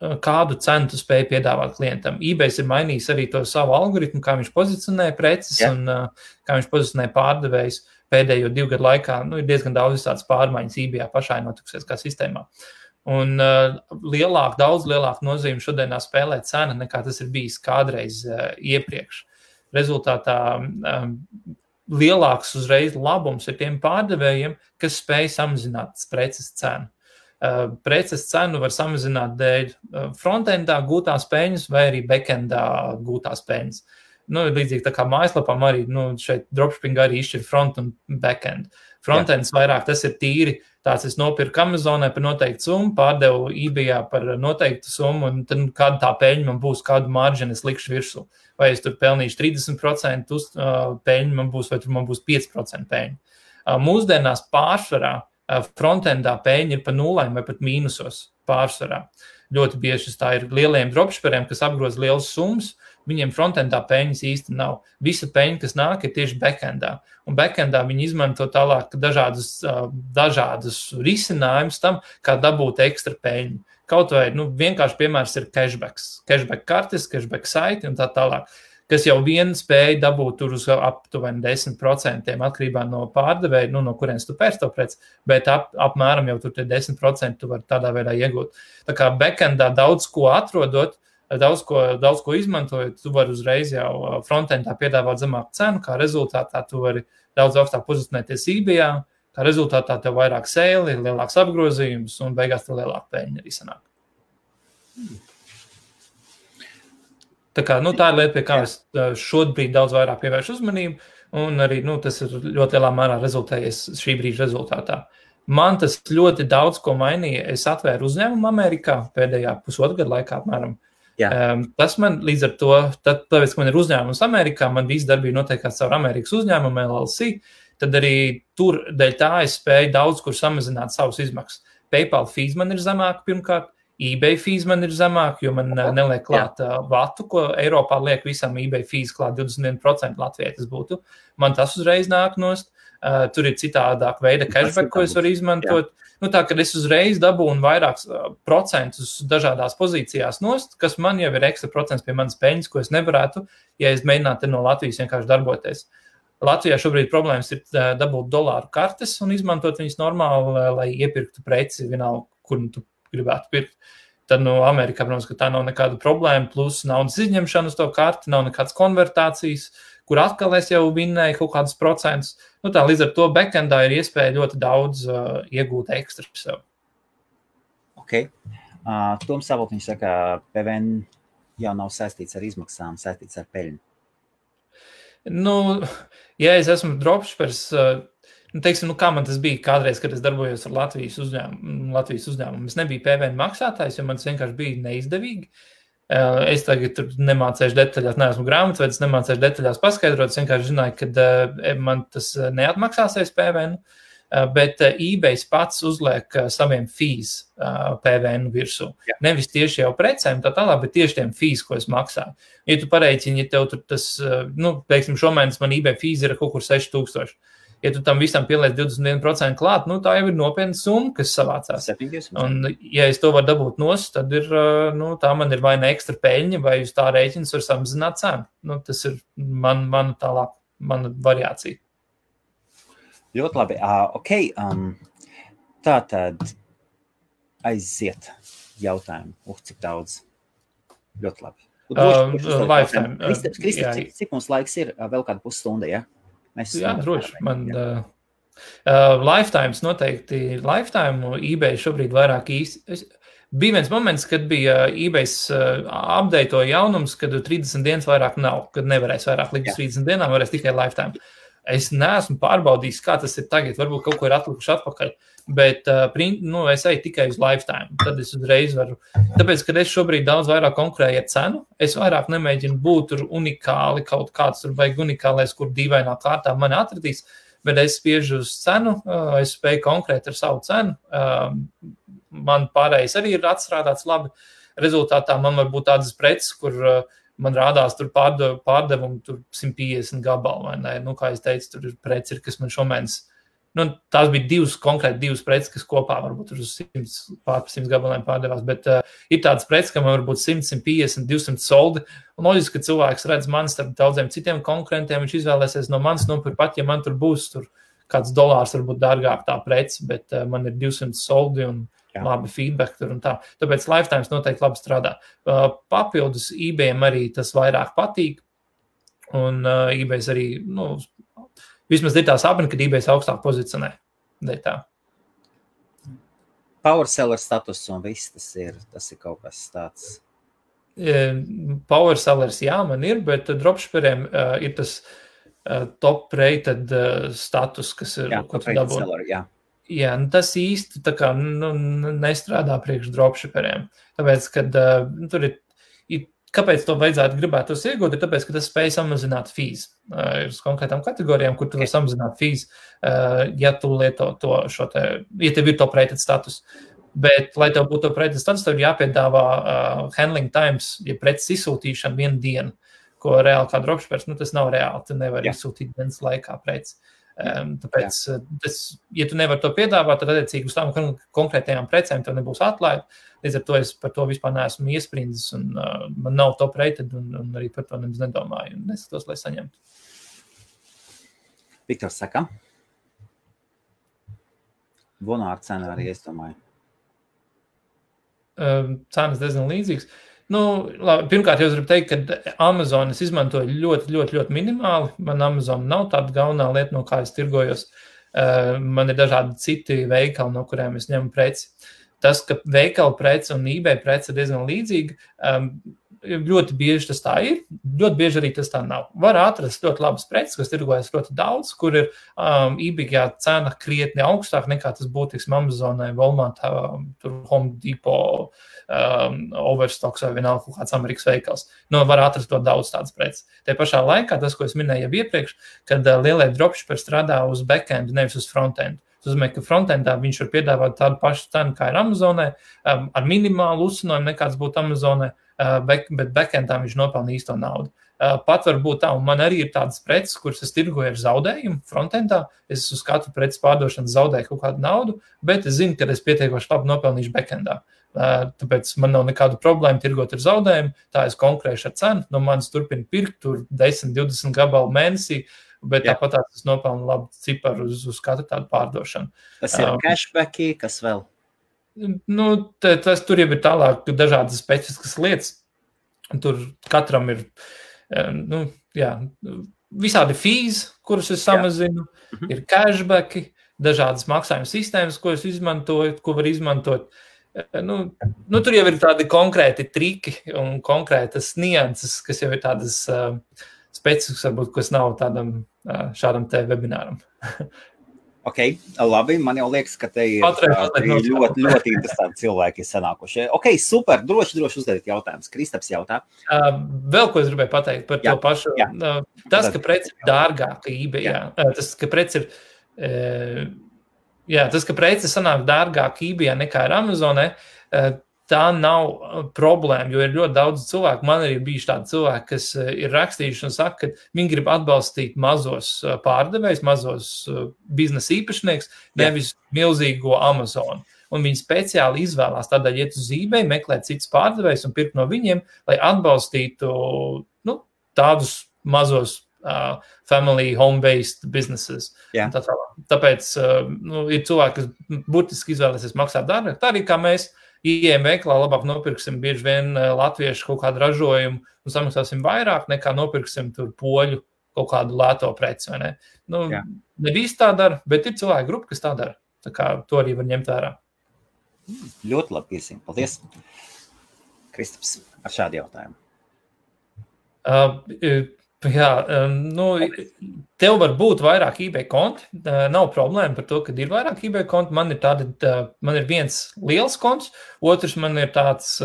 Kādu cenu tu spēj piedāvāt klientam. eBays ir mainījis arī to savu algoritmu, kā viņš pozicionē preces un kā viņš pozicionē pārdevējus pēdējo 2 gadu laikā. Ir diezgan daudz tādas pārmaiņas eBayā pašai notikusies kā sistēmā. Un daudz lielāku nozīmi šodienā spēlē cena, nekā tas ir bijis kādreiz iepriekš. Rezultātā lielāks uzreiz labums ir tiem pārdevējiem, kas spēj samazināt preces cenu. Preces cenu var samazināt dēļ frontendā gūtās peļņas vai arī backendā gūtās peļņas. Līdzīgi tā kā mājaslapām arī, šeit dropshipping arī izšķir front un backend. Frontends vairāk tas ir tīri, tāds es nopirku Amazonai par noteiktu summu, pārdevu eBayā par noteiktu summu, un tad kāda tā peļņa man būs, kādu marginu es likšu virsū. Vai es tur pelnīšu 30% peļņu man būs, vai tur man būs 5% peļņu. Mūsdienās pārsvarā frontendā peļņa ir pa nulēm vai pat mīnusos pārsvarā. Ļoti bieži tā ir lieliem dropshipperiem, kas apgroz lielas summas, viņiem frontendā peļņas īsti nav. Visa peļņa, kas nāk, ir tieši backendā. Un backendā viņi izmanto tālāk dažādus risinājumus tam, kā dabūt ekstra peļņu. Kaut vai, vienkārši piemērs ir cashbacks. Cashback kartes, cashback saiti un tā tālāk. Kas jau vien spēja dabūt tur uz aptuveni 10% atkarībā no pārdevēja, no kurienes tu pērc to preci, bet apmēram jau tur tie 10% tu var tādā veidā iegūt. Tā kā backendā daudz ko atrodot, daudz ko izmantojot, tu vari uzreiz jau frontendā piedāvāt zemāku cenu, kā rezultātā tu vari daudz augstāk pozicionēties eBayā, kā rezultātā tev vairāk sēli, lielāks apgrozījums un beigās tev lielāka peļņa arī sanāk. Tā kā, tā ir lieta, pie kā es šobrīd daudz vairāk pievēršu uzmanību, un arī, tas ir ļoti lielā mērā rezultējies šī brīža rezultātā. Man tas ļoti daudz ko mainīja. Es atvēru uzņēmumu Amerikā pēdējā pusotru gadu laikā apmēram. Tas man līdz ar to, tāpēc, ka man ir uzņēmums Amerikā, man visa darbība notiekās caur Amerikas uzņēmumu LLC, tad arī tur dēļ tā es spēju daudz kur samazināt savus izmaksas. PayPal fees man ir zemāk pirmkārt, eBay fees man ir zemāk, jo man neliek klāt vatu, ko Eiropā liek visam eBay fees klāt 21% Latvijai tas būtu. Man tas uzreiz nāk nost. Tur ir citādāk veida cashback, ko es varu izmantot. Tā, kad es uzreiz dabūnu vairākus procentus dažādās pozīcijās nost, kas man jau ir ekstra procents pie manas peļņas, ko es nevarētu, ja es mēģinātu no Latvijas vienkārši darboties. Latvijā šobrīd problēmas ir dabūt dolāru kartes un izmantot viņas normāli, lai iepirktu preci vienalga, kur tu gribētu pirkt. Tad Amerikā, protams, ka tā nav nekāda problēma, plus naudas izņemšana uz to karti, nav nekādas konvertācijas, kur atkal es jau vinnēju kaut kādus procentus. Tā līdz ar to backendā ir iespēja ļoti daudz iegūt ekstra sev. Ok. Toms Savotiņš saka, PVN jau nav saistīts ar izmaksām, saistīts ar peļņu. Ja es esmu dropshippers, teiksim, kā man tas bija kādreiz, kad es darbojos ar Latvijas uzņēmumu. Es nebiju PVN maksātājs, jo man tas vienkārši bija neizdevīgi. Es tagad tur nemācēšu detaļās, neesmu grāmatvedis, nemācēšu detaļās paskaidrot, es vienkārši zināju, ka man tas neatmaksāsies PVN, bet eBay pats uzliek saviem fees PVN virsū. Nevis tieši jau precēm tā tālāk, bet tieši tiem fees, ko es maksāju. Ja tu pareiķini, ja tev tur tas, teiksim, šomēnes man eBay fees ir kaut kur 6000. Ja tu tam visam pieliec 21% klāt, tā jau ir nopietna summa, kas savācās. Un, ja es to varu dabūt nost, tad ir, tā man ir vai ne ekstra peļņa, vai uz tā rēķinas var samazināt cenu. Tas ir mana variācija. Ļoti labi. Ok. Tātad aiziet jautājumu. Cik daudz? Ļoti labi. Lifetime. Kristap, cik mums laiks ir? Vēl kāda pusstunda, ja? Droši. Lifetimes noteikti. Lifetime eBay šobrīd vairāk īsti. Bija viens moments, kad bija eBay update'o jaunums, kad 30 dienas vairāk nav, kad nevarēs vairāk likt 30 dienām, varēs tikai lifetime. Es neesmu pārbaudījis, kā tas ir tagad, varbūt kaut ko ir atlikuši atpakaļ, bet es eju tikai uz lifetime. Tad es uzreiz varu, tāpēc, kad es šobrīd daudz vairāk konkurēju ar cenu, es vairāk nemēģinu būt tur unikāli, kaut kāds tur vajag unikālais, kur dīvainā kārtā mani atradīs, bet es spiežu uz cenu, es spēju konkrēt ar savu cenu, man pārējais arī ir atstrādāts labi, rezultātā man var būt tādas preces, kur man rādās tur pārdevumu tur 150 gabalu, vai ne? Kā es teicu, tur ir preci, kas man šomēnes, tās bija konkrēti divas preces, kas kopā varbūt tur uz 100 gabaliem pārdevās, bet ir tādas preces, ka man varbūt 100, 150, 200 soldi, un loģiski, ka cilvēks redz mani starp daudziem citiem konkurentiem, viņš izvēlēsies no manis nopirkt pat, ja man tur būs tur kāds dolārs varbūt dārgāk tā preci, bet man ir 200 soldi un labi feedback tur un tā. Tāpēc Lifetimes noteikti labi strādā. Papildus eBayam arī tas vairāk patīk. Un eBays arī, vismaz ir tā sapni, kad eBays augstāk pozicionē. Tā. Power seller status un viss tas ir kaut kas tāds. Power sellers, jā, man ir, bet dropshipperiem ir tas top rated status, kas ir, ko tu dabū. Jā, tas īsti tā kā nestrādā priekš dropshipperiem. Tāpēc, kad tur ir, kāpēc to vajadzētu gribētos iegūt, ir tāpēc, ka tas spēj samazināt fees. Ir uz konkrētām kategorijām, kur tu var samazināt fees, ja tu lieto ja tev ir top rated status. Bet, lai tev būtu top rated status, tev ir jāpiedāvā handling times, ja preces izsūtīšana 1 dienu, ko reāli kā dropshippers, tas nav reāli, tu nevar izsūtīt dienas laikā preci. Tāpēc, ja tu nevar to piedāvāt, tad attiecīgi uz tām konkrētajām precēm tev nebūs atlaida. Līdz ar to es par to vispār neesmu iesprindis un man nav top rated un arī par to nemaz nedomāju un neskatos, lai saņemtu. Viktors saka. Vonāra cena arī, es domāju. Cenas diezgan līdzīgas. Labi, pirmkārt, jau gribu teikt, ka Amazon es izmantoju ļoti, ļoti, ļoti minimāli. Man Amazon nav tāda galvenā lieta, no kā es tirgojos. Man ir dažādi citi veikali, no kuriem es ņemu preci. Tas, ka veikala preci un eBay preci ir diezgan līdzīgi, ļoti bieži tas tā ir, ļoti bieži arī tas tā nav. Var atrast ļoti labas preces, kas tirgojas ļoti daudz, kur ir eBay cena krietni augstāk nekā tas būtu, Amazonai, Walmart, Home Depot, Overstocks vai vienalga kaut kāds Amerikas veikals. Var atrast to daudz tādas preces. Te pašā laikā, tas, ko es minēju jau iepriekš, kad lielie dropshipperi strādā uz backend, nevis uz frontend. Tas nozīmē, ka frontendā viņš var piedāvāt tādu pašu cenu, kā ir Amazonai, ar minimālu uzsinojumu nekāds būtu Amazonai, bet backendā viņš nopelna īsto naudu. Pat var būt tā, un man arī ir tādas preces, kuras es tirgoju ar zaudējumu frontendā. Es uz katru preces pārdošanu zaudēju kaut kādu naudu, bet es zinu, ka es pietiekoši labi nopelnīšu backendā. Tāpēc man nav nekādu problēmu tirgot ar zaudējumu, tā es konkurēšu ar cenu, no manis turpina pirkt tur 10-20 gabalu mēnesī, bet tāpat es nopelnu labu ciparu uz katru tādu pārdošanu. Tas ir cashbacki, kas vēl? Tur jau ir tālāk dažādas specifiskas lietas. Tur katram ir, visādi fees, kurus es samazinu, ir cashbacki, dažādas maksājuma sistēmas, ko es izmantoju, ko var izmantot. Tur jau ir tādi konkrēti triki un konkrētas nianses, kas jau ir tādas specifiskas, varbūt, kas nav šādam te webināram. Ok, labi, man jau liekas, ka te ir ļoti, ļoti interesanti cilvēki sanākušie. Ok, super, droši uzdevīt jautājumus. Kristaps jautā. Vēl ko es gribēju pateikt par to pašu. Tas, ka preci ir dārgāka eBayā, tas, ka preci sanāk dārgāk eBayā nekā ir Amazonē, tā nav problēma, jo ir ļoti daudz cilvēku. Man arī bijuši tādi cilvēki, kas ir rakstījuši un saka, ka viņi grib atbalstīt mazos pārdevējus, mazos biznesa īpašnieks, nevis milzīgo Amazonu. Un viņi speciāli izvēlās tādēļ iet uz eBay, meklēt citus pārdevējus un pirkt no viņiem, lai atbalstītu tādus mazos family home-based businesses. Tāpēc ir cilvēki, kas burtiski izvēlēsies maksāt dārgāk. Tā arī kā mēs ieejam veikalā, labāk nopirksim bieži vien latviešu kaut kādu ražojumu un samaksāsim vairāk nekā nopirksim tur poļu kaut kādu lēto preci, vai ne? Ne visi tā dara, bet ir cilvēki grupa, kas tā dara. Tā kā to arī var ņemt vērā. Ļoti labi piesīm. Paldies. Kristaps, ar šādu jautājumu. Tev var būt vairāk eBay konti, nav problēma par to, ka ir vairāk eBay konti, man ir viens liels konts, otrs man ir tāds,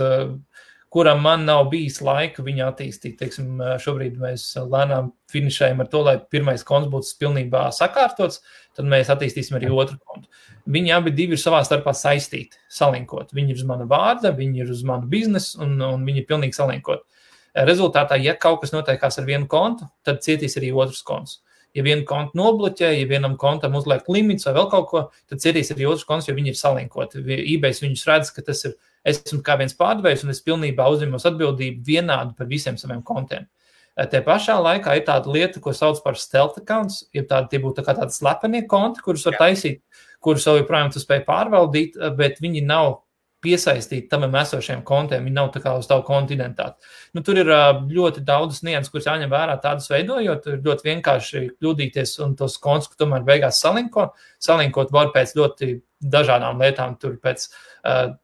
kuram man nav bijis laika viņu attīstīt, teiksim, šobrīd mēs lēnām finišējam ar to, lai pirmais konts būtu pilnībā sakārtots, tad mēs attīstīsim arī otru kontu. Viņi abi divi ir savā starpā saistīti, salinkot, viņi ir uz mana vārda, viņi ir uz manu biznesu un viņi ir pilnīgi salinkot. Rezultātā, ja kaut kas notiekās ar vienu kontu, tad cietīs arī otrs konts. Ja vienu kontu nobloķē, ja vienam kontam uzliek limits vai vēl kaut ko, tad cietīs arī otrs konts, jo viņi ir salinkoti. eBay viņus redz, ka tas ir, esmu kā viens pārdevējs un es pilnībā uzņemos atbildību vienādu par visiem saviem kontiem. Te pašā laikā ir tāda lieta, ko sauc par stealth accounts, tie būtu tādi slepenie konti, kurus var taisīt, kurus vēl joprojām tu spēj pārvaldīt, bet viņi nav piesaistīti tam esošiem kontiem, viņi nav tā kā uz tavu kontu identitāti. Nu, tur ir ļoti daudz nianses, kuras jāņem vērā tādus veidojot, ir ļoti vienkārši kļūdīties un tos kontus, ka tomēr beigās salinkot var pēc ļoti dažādām lietām, tur pēc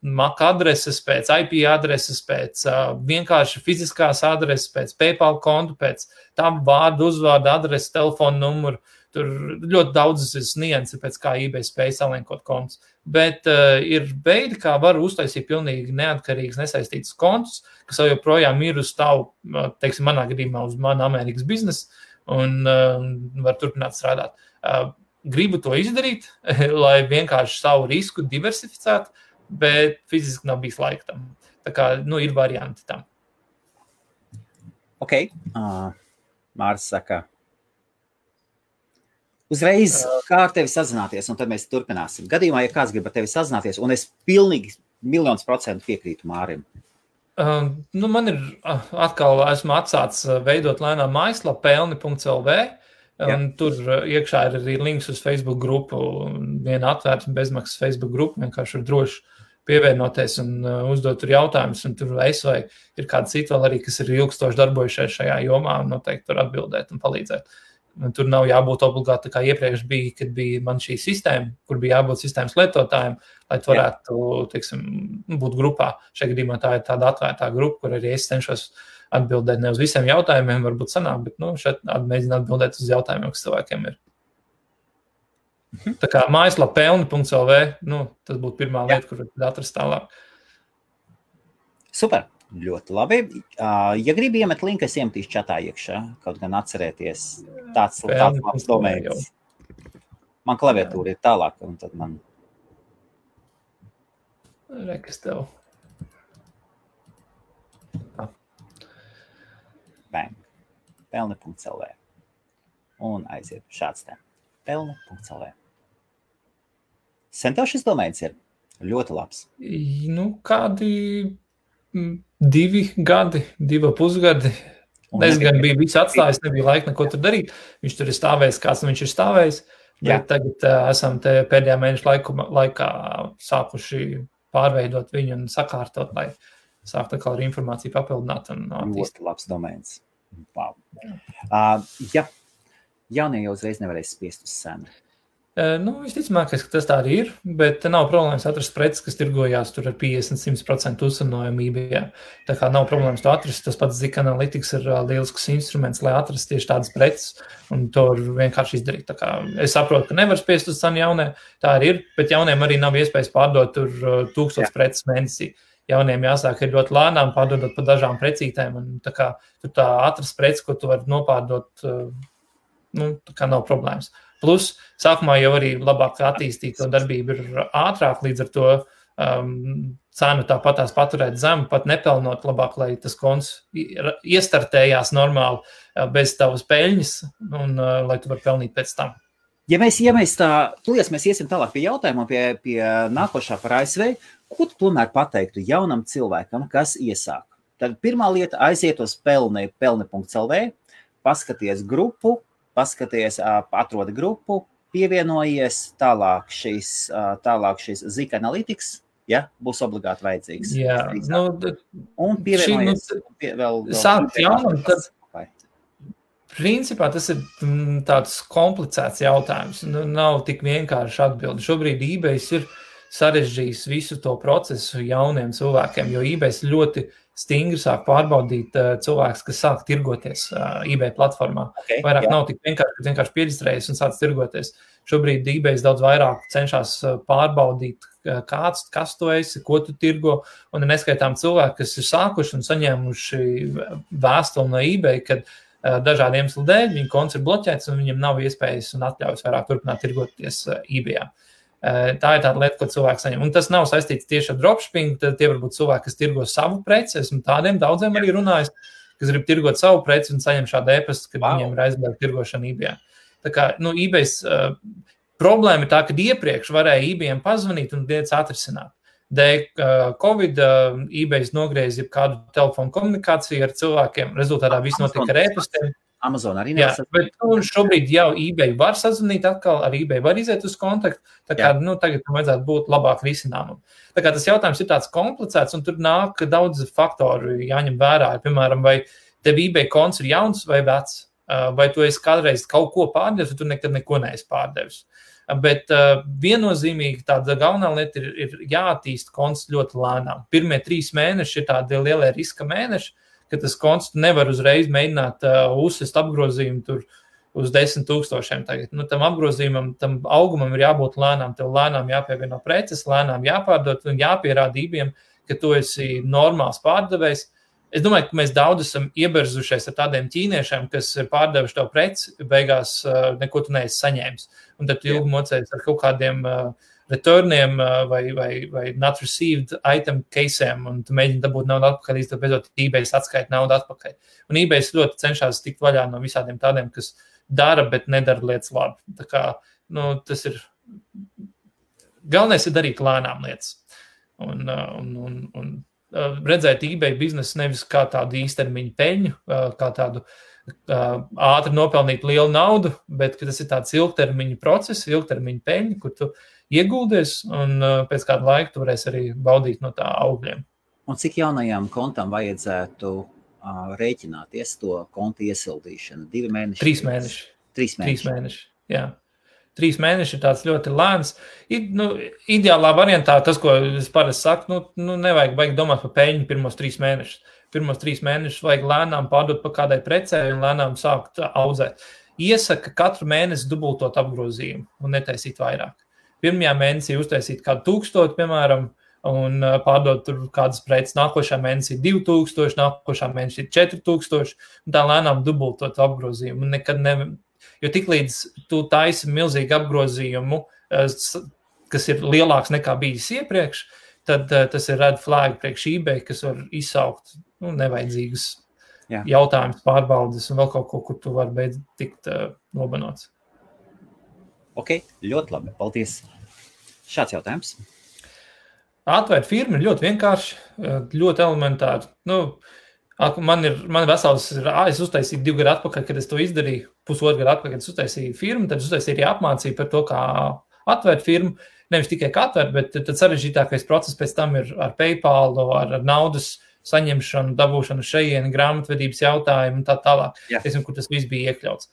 MAC adreses, pēc IP adreses, pēc vienkārši fiziskās adreses, pēc PayPal kontu, pēc tam vārdu, uzvārdu adreses, telefonu numuru. Tur ļoti daudzas nianses, pēc kā eBay spēj salinkot kontus. Bet ir veidi, kā var uztaisīt pilnīgi neatkarīgas, nesaistītas kontus, kas jau joprojām ir uz tavu, teiksim, manā gadījumā uz manu Amerikas biznesu un var turpināt strādāt. Gribu to izdarīt, lai vienkārši savu risku diversificētu, bet fiziski nav bijis laika tam. Tā kā, ir varianti tam. Ok. Māris saka, uzreiz kā ar tevi sazināties, un tad mēs turpināsim. Gadījumā, ja kāds grib ar tevi sazināties, un es pilnīgi 100% piekrītu Mārim. Man ir atkal, esmu atsācis veidot lēnām mājaslapu pelni.lv, un tur iekšā ir arī links uz Facebook grupu, viena atvērta bezmaksas Facebook grupu, vienkārši ir droši pievienoties un uzdot tur jautājumus, un tur es vai ir kāda cita vēl arī, kas ir ilgstoši darbojušies šajā jomā, un noteikti tur atbildēt un palīdzēt. Tur nav jābūt obligāti, kā iepriekš bija, kad bija man šī sistēma, kur bija jābūt sistēmas lietotājiem, lai tu varētu, teiksim, būt grupā. Šajā gadījumā tā ir tāda atvērtā grupa, kur arī es cenšos atbildēt ne uz visiem jautājumiem, varbūt sanāk, bet šeit mēģinu atbildēt uz jautājumiem, kas cilvēkiem ir. Tā kā mājaslapa pelni.lv, tas būtu pirmā lieta, kur atrast tālāk. Super. Ļoti labi. Ja gribi iemet linku, es iemetīšu čatā iekšā, kaut gan atcerēties tāds labs domējums. Man klaviatūra ir tālāk, un tad man... Rekas tev. Bang. Pelni.lv. Un aiziet šāds te. Pelni.lv. Sen tev šis domējums ir ļoti labs. Kādi... 2 gadi, 2,5 gadi. Es gan biju visu atstājis, nebija laika neko tur darīt. Viņš tur ir stāvējis, kāds viņš ir stāvējis. Bet tagad esam te pēdējā mēneša laikā sākuši pārveidot viņu un sakārtot, lai sāktu atkal ar informāciju papildināt un attīstīt. Ļoti labs domēns. Wow. Jaunie jau uzreiz nevarēs spiest uz senu. Visticamākais, ka tas tā arī ir, bet nav problēmas atrast preces, kas tirgojās tur ar 50-100% uzsanojumu eBay. Tā kā nav problēmas to atrast, tas pats Zik Analytics ir lielisks instruments, lai atrast tieši tādas preces, un to vienkārši izdarīt. Tā kā es saprotu, ka nevar spiest uz cenu jaunie, tā arī ir, bet jauniem arī nav iespējas pārdot tur 1000 preces mēnesī. Jauniem jāsāk ir ļoti lēnām pārdodot pa dažām precītēm, un tā kā tur tā atrast preces, ko tu vari nopārdot, tā kā nav problēmas. Plus, sākumā jau arī labāk attīstīt to darbību ir ātrāk, līdz ar to cenu tāpatās paturēt zemu, pat nepelnot labāk, lai tas konts iestartējās normāli bez tavas peļņas un lai tu var pelnīt pēc tam. Ja mēs tā, tūlies mēs iesim tālāk pie jautājuma, pie nākošā par ASV, ko tu tomēr pateiktu jaunam cilvēkam, kas iesāk? Tad pirmā lieta aiziet uz pelni.lv, paskaties grupu, atrodi grupu, pievienojies, tālāk šis Zik Analytics, būs obligāti vajadzīgs. Jā, un pievienojies vēl sākt jaunam, tad principā tas ir tāds komplicēts jautājums, nav tik vienkārši atbildi. Šobrīd eBay ir sarežģījis visu to procesu jauniem cilvēkiem, jo eBay ļoti stingri sāk pārbaudīt cilvēks, kas sāk tirgoties eBay platformā. Vairāk nav tik vienkārši, kad vienkārši pierģistrējies un sāc tirgoties. Šobrīd eBay daudz vairāk cenšas pārbaudīt, kas tu esi, ko tu tirgo, un neskaitām cilvēki, kas ir sākuši un saņēmuši vēstuli no eBay, kad dažādiem iemeslu dēļ viņa konts ir bloķēts un viņam nav iespējas un atļaujas vairāk turpināt tirgoties eBayā. Tā ir tāda lieta, ko cilvēks saņem. Un tas nav saistīts tieši ar dropshipping, tad tie var būt cilvēki, kas tirgo savu preci. Esmu tādiem daudziem arī runājis, kas grib tirgot savu preci un saņem šādu e-pastu, kad viņiem ir aizliegta tirgošana eBayā. Tā kā, eBay problēma ir tā, ka iepriekš varēja eBayam pazvanīt un lietas atrisināt. Dēļ Covid eBay nogriez kādu telefonu komunikāciju ar cilvēkiem, rezultātā viss notika ar e-pastiem. Amazon arī Jā, nevar bet šobrīd jau eBay var sazvanīt atkal, ar eBay var iziet uz kontaktu, tā kā, tagad vajadzētu būt labāk risinājumam. Tā kā tas jautājums ir tāds komplicēts, un tur nāk daudz faktoru jāņem vērā. Piemēram, vai tev eBay konts ir jauns vai vecs, vai tu esi kādreiz kaut ko pārdevis, vai tu nekad neko neesi pārdevis. Bet viennozīmīgi tāda galvenā lieta ir jāattīst konts ļoti lēnām. Pirmie 3 mēneši ir tādi lielie riska mēneši, ka tas konts nevar uzreiz mēģināt uzsist apgrozījumu tur uz 10 000 tagad. Tam apgrozījumam, tam augumam ir jābūt lēnām, tev lēnām jāpievieno preces, lēnām jāpārdod un jāpierāda eBayam, ka tu esi normāls pārdevējs. Es domāju, ka mēs daudz esam ieberzušies ar tādiem ķīniešiem, kas ir pārdevuši tev preci, beigās neko tu neesi saņēmis. Un tad tu ilgi mocējies ar kaut kādiem returniem vai not received item case'iem, un tu mēģini dabūt naudu atpakaļ, līdz beidzot eBay atskaita naudu atpakaļ. Un eBay ļoti cenšas tikt vaļā no visādiem tādiem, kas dara, bet nedara lietas labi. Tā kā, tas ir galvenais ir darīt lēnām lietas. Un redzēt eBay biznesu nevis kā tādu īstermiņu peļņu, kā tādu ātri nopelnīt lielu naudu, bet ka tas ir tāds ilgtermiņa process, ilgtermiņa peļņa, kur tu ieguldies un pēc kāda laika tu varēsi arī baudīt no tā augļiem. Un cik jaunajām kontam vajadzētu rēķināties to kontu iesildīšanu? 2 mēneši? 3 mēneši. 3 mēneši, jā. 3 mēneši ir tāds ļoti lēns. Ideālā variantā, tas, ko es parasti saku, nevajag baigi domāt par peļņu pirmos 3 mēnešus. Pirmos 3 mēnešus vajag lēnām pārdot pa kādai precē un lēnām sākt audzēt. Iesaka katru mēnesi dubultot apgrozījumu un netaisīt vairāk. Pirmajā mēnesī uztaisīt kādu 1000, piemēram, un pārdot tur kādas preces. Nākošā mēnesī 2000, nākošā mēnesī 4000, un tā lēnām dubultot apgrozījumu. Un nekad jo tiklīdz tu taisi milzīgu apgrozījumu, kas ir lielāks nekā bijis iepriekš, tad tas ir red flag priekš eBay, kas var izsaukt nevajadzīgas jautājumus, pārbaudes un vēl kaut ko, kur tu vari beidz tikt nobanots. Ok, ļoti labi, paldies. Šāds jautājums. Atvērt firmu ir ļoti vienkārši, ļoti elementāri. Man vesels ir, es uztaisīju 2 gadu atpakaļ, kad es to izdarīju, 1,5 gadu atpakaļ, kad es uztaisīju firmu, tad es uztaisīju arī apmācību par to, kā atvērt firmu, nevis tikai kā atvērt, bet tad sarežģītākais process pēc tam ir ar PayPal, ar naudas saņemšanu, dabūšanu šejieni, grāmatvedības jautājumu un tā tālāk, kur tas viss bija iekļauts.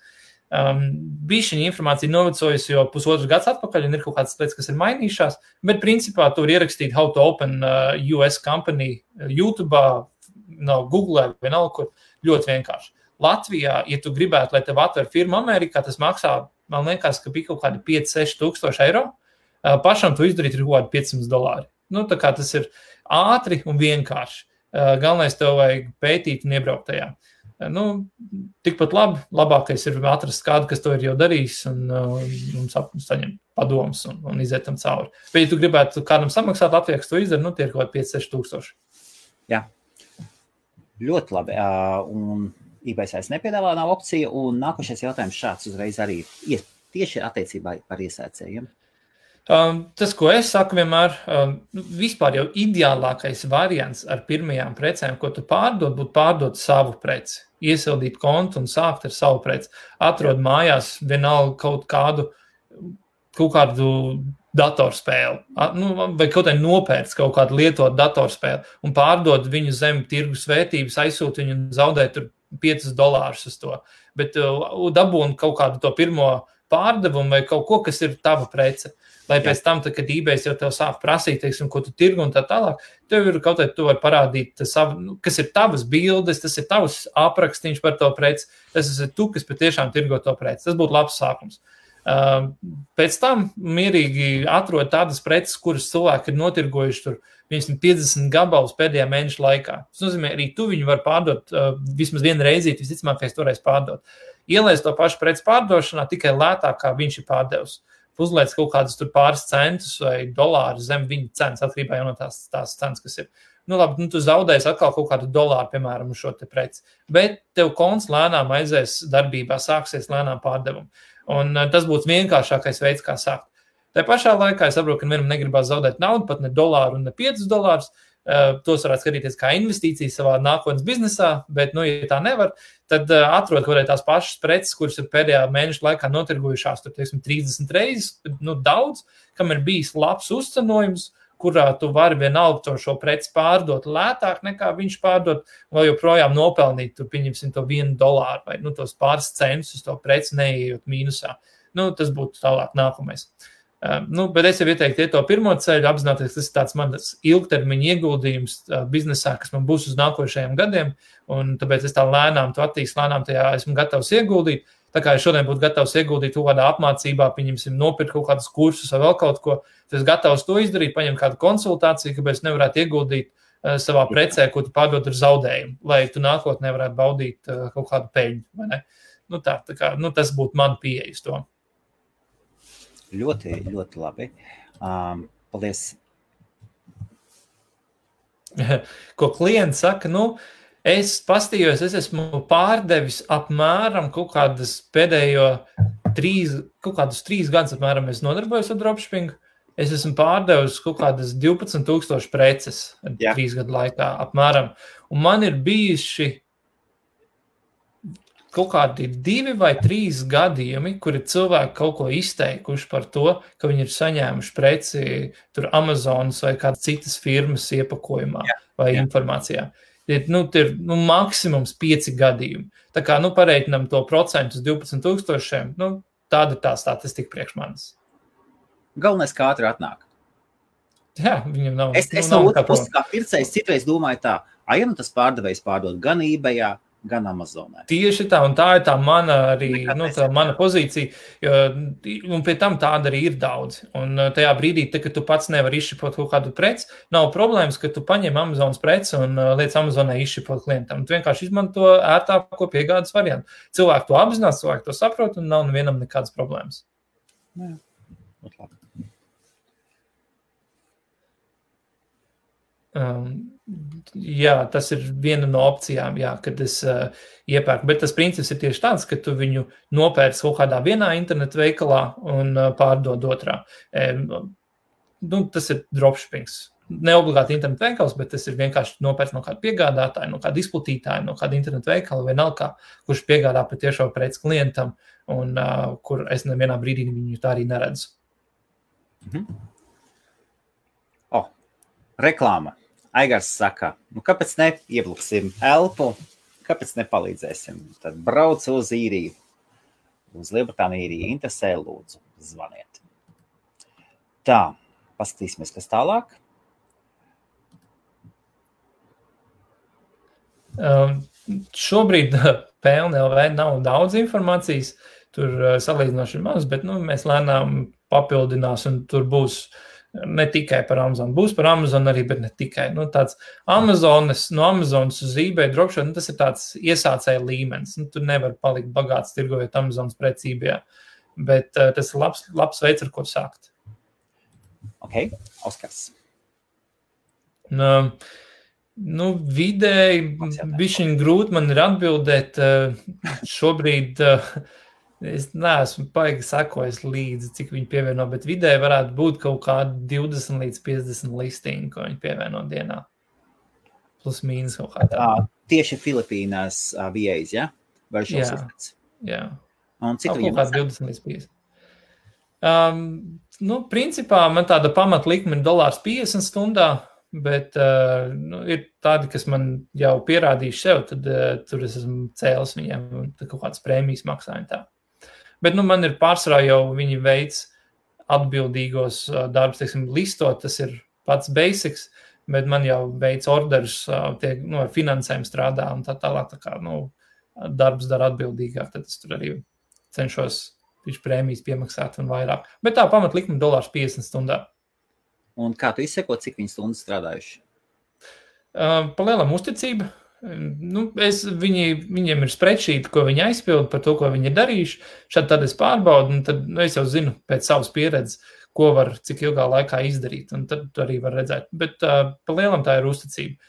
Bišķiņa informācija novecojusi, jo 1,5 gads atpakaļ un ir kaut kādas lietas, kas ir mainījušās, bet principā tur ierakstīt how to open US company YouTube'ā, Google vai nav kur, ļoti vienkārši. Latvijā, ja tu gribētu, lai tev atver firmu Amerikā, tas maksā, man liekas, ka bija kaut kādi 5-6 tūkstoši eiro. Pašam to izdarīt ir kaut kādi $500. Tā kā tas ir ātri un vienkārši. Galvenais tev vajag pētīt un iebraukt tajā. Tikpat labākais ir atrast kādu, kas to ir jau darījis un saņemt padomus un iziet tam cauri. Bet, ja tu gribētu kādam samaksāt Latvijā, kas to izdara, tie ir kaut kādi 5-6 tūkstoši. Jā. Ļoti labi. Un eBay vairs nepiedāvā nav opcija. Un nākošais jautājums šāds uzreiz arī tieši attiecībā par iesēcējiem. Tas, ko es saku vienmēr, vispār jau ideālākais variants ar pirmajām precēm, ko tu pārdod, būtu pārdot savu preci. Iesildīt kontu un sākt ar savu preci. Atrod mājās vienalga kaut kādu datorspēli, vai kaut kā nopērts kaut kādu lietotu datorspēli un pārdod viņu zem tirgus vērtības, aizsūt viņu un zaudēt tur $5 uz to. Bet dabūn kaut kādu to pirmo pārdevumu vai kaut ko, kas ir tava prece. Lai pēc tam, kad eBay jau tev sāk prasīt, ko tu tirgu un tā tālāk, tev ir kaut kā tu vari parādīt savu, kas ir tavas bildes, tas ir tavs aprakstīns par to preci, tas ir tu, kas patiešām tirgo to preci. Tas būtu labs sākums. Pēc tam mierīgi atrod tādas preces, kuras cilvēki ir notirgojuši tur 50 gabalus pēdējā mēneša laikā. Tas nozīmē, arī tu viņu var pārdot vismaz vienu reizīti, visticamākais toreiz pārdot. Ielaist to pašu preci pārdošanā tikai lētāk, kā viņš ir pārdevis. Uzliec kaut kādus tur pāris centus vai dolāru zem viņa cenas, atkarībā jau no tās cenas, kas ir. Tu zaudēsi atkal kaut kādu dolāru, piemēram, uz šo te preci. Bet tev konts lēnām aizies darbībā, sāksies lēnām pārdevumu. Un tas būtu vienkāršākais veids, kā sākt. Tā pašā laikā es saprotu, ka vienam negribās zaudēt naudu, pat ne dolāru un ne $5, tos varētu skatīties kā investīcijas savā nākotnes biznesā, bet, ja tā nevar, tad atrod kaut tās pašas preces, kuras ir pēdējā mēneša laikā notirgojušās, tur, 30 reizes, daudz, kam ir bijis labs uzcenojums, kurā tu vari vienalga šo preci pārdot lētāk nekā viņš pārdot, vai joprojām nopelnīt, tu pieņemsim to $1 vai tos pāris centus uz to preci neejot mīnusā. Tas būtu tālāk nākamais. Bet es jau ieteiktu to pirmo ceļu, apzināties, tas ir tāds mans ilgtermiņa ieguldījums biznesā, kas man būs uz nākošajiem gadiem, un tāpēc es tā lēnām to attīstu, lēnām tajā esmu gatavs ieguldīt. Tā kā es šodien būtu gatavs ieguldīt kaut kādā apmācībā, pieņemsim, nopirkt kaut kādus kursus vai vēl kaut ko, tad es gatavs to izdarīt, paņemt kādu konsultāciju, kāpēc nevarētu ieguldīt savā precē, ko tu pārdod ar zaudējumu, lai tu nākotnē varētu baudīt kaut kādu peļņu, vai ne? Tas būtu man pieeja uz to. Ļoti, ļoti labi. Paldies. Ko klients saka, es pastījos, es esmu pārdevis apmēram kaut kādas pēdējo 3 gadus apmēram es nodarbojos ar dropshippingu. Es esmu pārdevis kaut kādas 12,000 preces 3 gadu laikā apmēram. Un man ir bijuši kaut kādi 2 vai 3 gadījumi, kuri cilvēki kaut ko izteikuši par to, ka viņi ir saņēmuši preci tur Amazonas vai kādas citas firmas iepakojumā vai informācijā. Ir maksimums 5 gadījumi. Tā kā, pareiķinam to procentu uz 12,000, tāda ir tā statistika priekš manis. Galvenais, kā ātri atnāk. Jā, viņam nav. Es no otras puses, kā pircējs, citreiz domāju tā, tas pārdevējs pārdod gan eBayā, gan Amazonē. Tieši tā, un tā ir tā mana arī, mana pozīcija, un pie tam tāda arī ir daudz. Un tajā brīdī, kad tu pats nevari izšipot kaut kādu preci, nav problēmas, ka tu paņem Amazonas preci un liec Amazonē izšipot klientam. Tu vienkārši izmanto ērtāko piegādes variantu. Cilvēki to apzinās, cilvēki to saprot, un nav nevienam nekādas problēmas. Jā, ļoti labi. Jā, tas ir viena no opcijām, kad es iepērku, bet tas princips ir tieši tāds, ka tu viņu nopērci kaut kādā vienā internetu veikalā un pārdod otrā. Tas ir dropshippings. Ne obligāti internetu veikals, bet tas ir vienkārši nopērts no kāda piegādātāja, no kāda izplatītāja, no kāda internetu veikala vai vienalga, kurš piegādā patiešo preci klientam un kur es nevienā brīdī viņu tā arī neredzu. Reklāma. Aigars saka, kāpēc neiebluksim elpu, kāpēc nepalīdzēsim? Tad brauc uz īriju, uz Lielbritāniju īriju, interesē, lūdzu, zvaniet. Tā, paskatīsimies, kas tālāk. Šobrīd PLNLV nav daudz informācijas, tur salīdzinoši maz, bet mēs lēnām papildinās un tur būs ne tikai par Amazon, būs par Amazon arī, bet ne tikai. Tāds Amazonas, no Amazonas uz eBay dropshipping, tas ir tāds iesācēja līmenis. Tur nevar palikt bagāts tirgojot Amazonas preci eBayā, bet tas ir labs veids, ar ko sākt. Ok, Oskars. Vidēji bišķiņ grūti man ir atbildēt. Šobrīd es neesmu paigi sakojis līdzi, cik viņi pievieno, bet vidēji varētu būt kaut kādi 20 līdz 50 listingi, ko viņi pievieno dienā. Plus mīnus kaut kā tā. Tieši Filipīnās VAs, ja? Vai šos iztec? Jā. Un cik viņam kaut kā 20 līdz 50. Principā man tāda pamatlikme ir $1.50 stundā, bet ir tādi, kas man jau pierādījuši sev, tad tur es esmu cēlis viņiem kaut kādas prēmijas maksājumi tā. Bet man ir pārsvarā jau viņi veids atbildīgos darbus, teiksim, listot, tas ir pats basics, bet man jau veids orderus, ar finansēm strādā un tā tālāk, tā kā, darbs dara atbildīgāk, tad es tur arī cenšos prēmijas piemaksāt un vairāk. Bet tā pamatlikme $1.50 stundā. Un kā tu izseko, cik viņi stundas strādājuši? Pa lielam uzticība. Viņiem ir spreadsheet, ko viņi aizpild par to, ko viņi ir darījuši. Šādi tad es pārbaudu, un tad es jau zinu pēc savas pieredzes, ko var cik ilgā laikā izdarīt, un tad arī var redzēt. Bet pa lielam tā ir uzticība.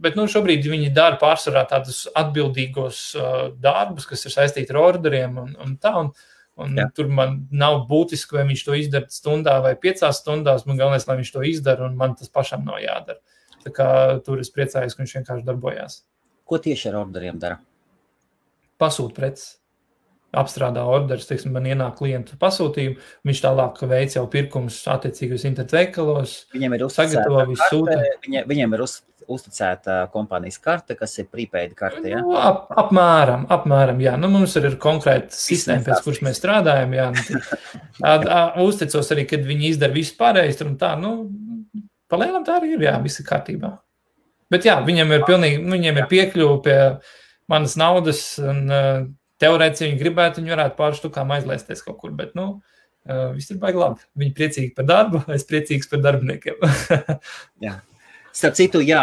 Bet šobrīd viņi dara pārsvarā tādus atbildīgos darbus, kas ir saistīti ar orderiem un tā, un Un tur man nav būtiski, vai viņš to izdara stundā vai 5 stundās, man galvenais, lai viņš to izdara, un man tas pašam nav jādara. Tā kā tur es priecājos, ka viņš vienkārši darbojās. Ko tieši ar orderiem dara? Pasūt preces. Apstrādā orderis, teiksim, man ienāk klientu pasūtījumu, viņš tālāk veic jau pirkumus attiecīgos internetu veikalos, sagatavo visu sūta. Viņiem ir uzticēta kompānijas karte, kas ir prepaid karte, ja? Nu, apmēram, jā. Nu, mums ir konkrēta sistēma, pēc kuras mēs strādājam, jā. Uzticos arī, kad viņi izdara visu pārējais, un tā, palielam tā arī ir, jā, viss ir kārtībā. Bet jā, viņiem ir piekļuva pie manas naudas, un teorētiski, ja viņi gribētu, viņi varētu pāris štukām aizlaisties kaut kur, bet, viss ir baigi labi. Viņi priecīgi par darbu, es priecīgs par darbiniekiem. Jā. Starp citu, jā,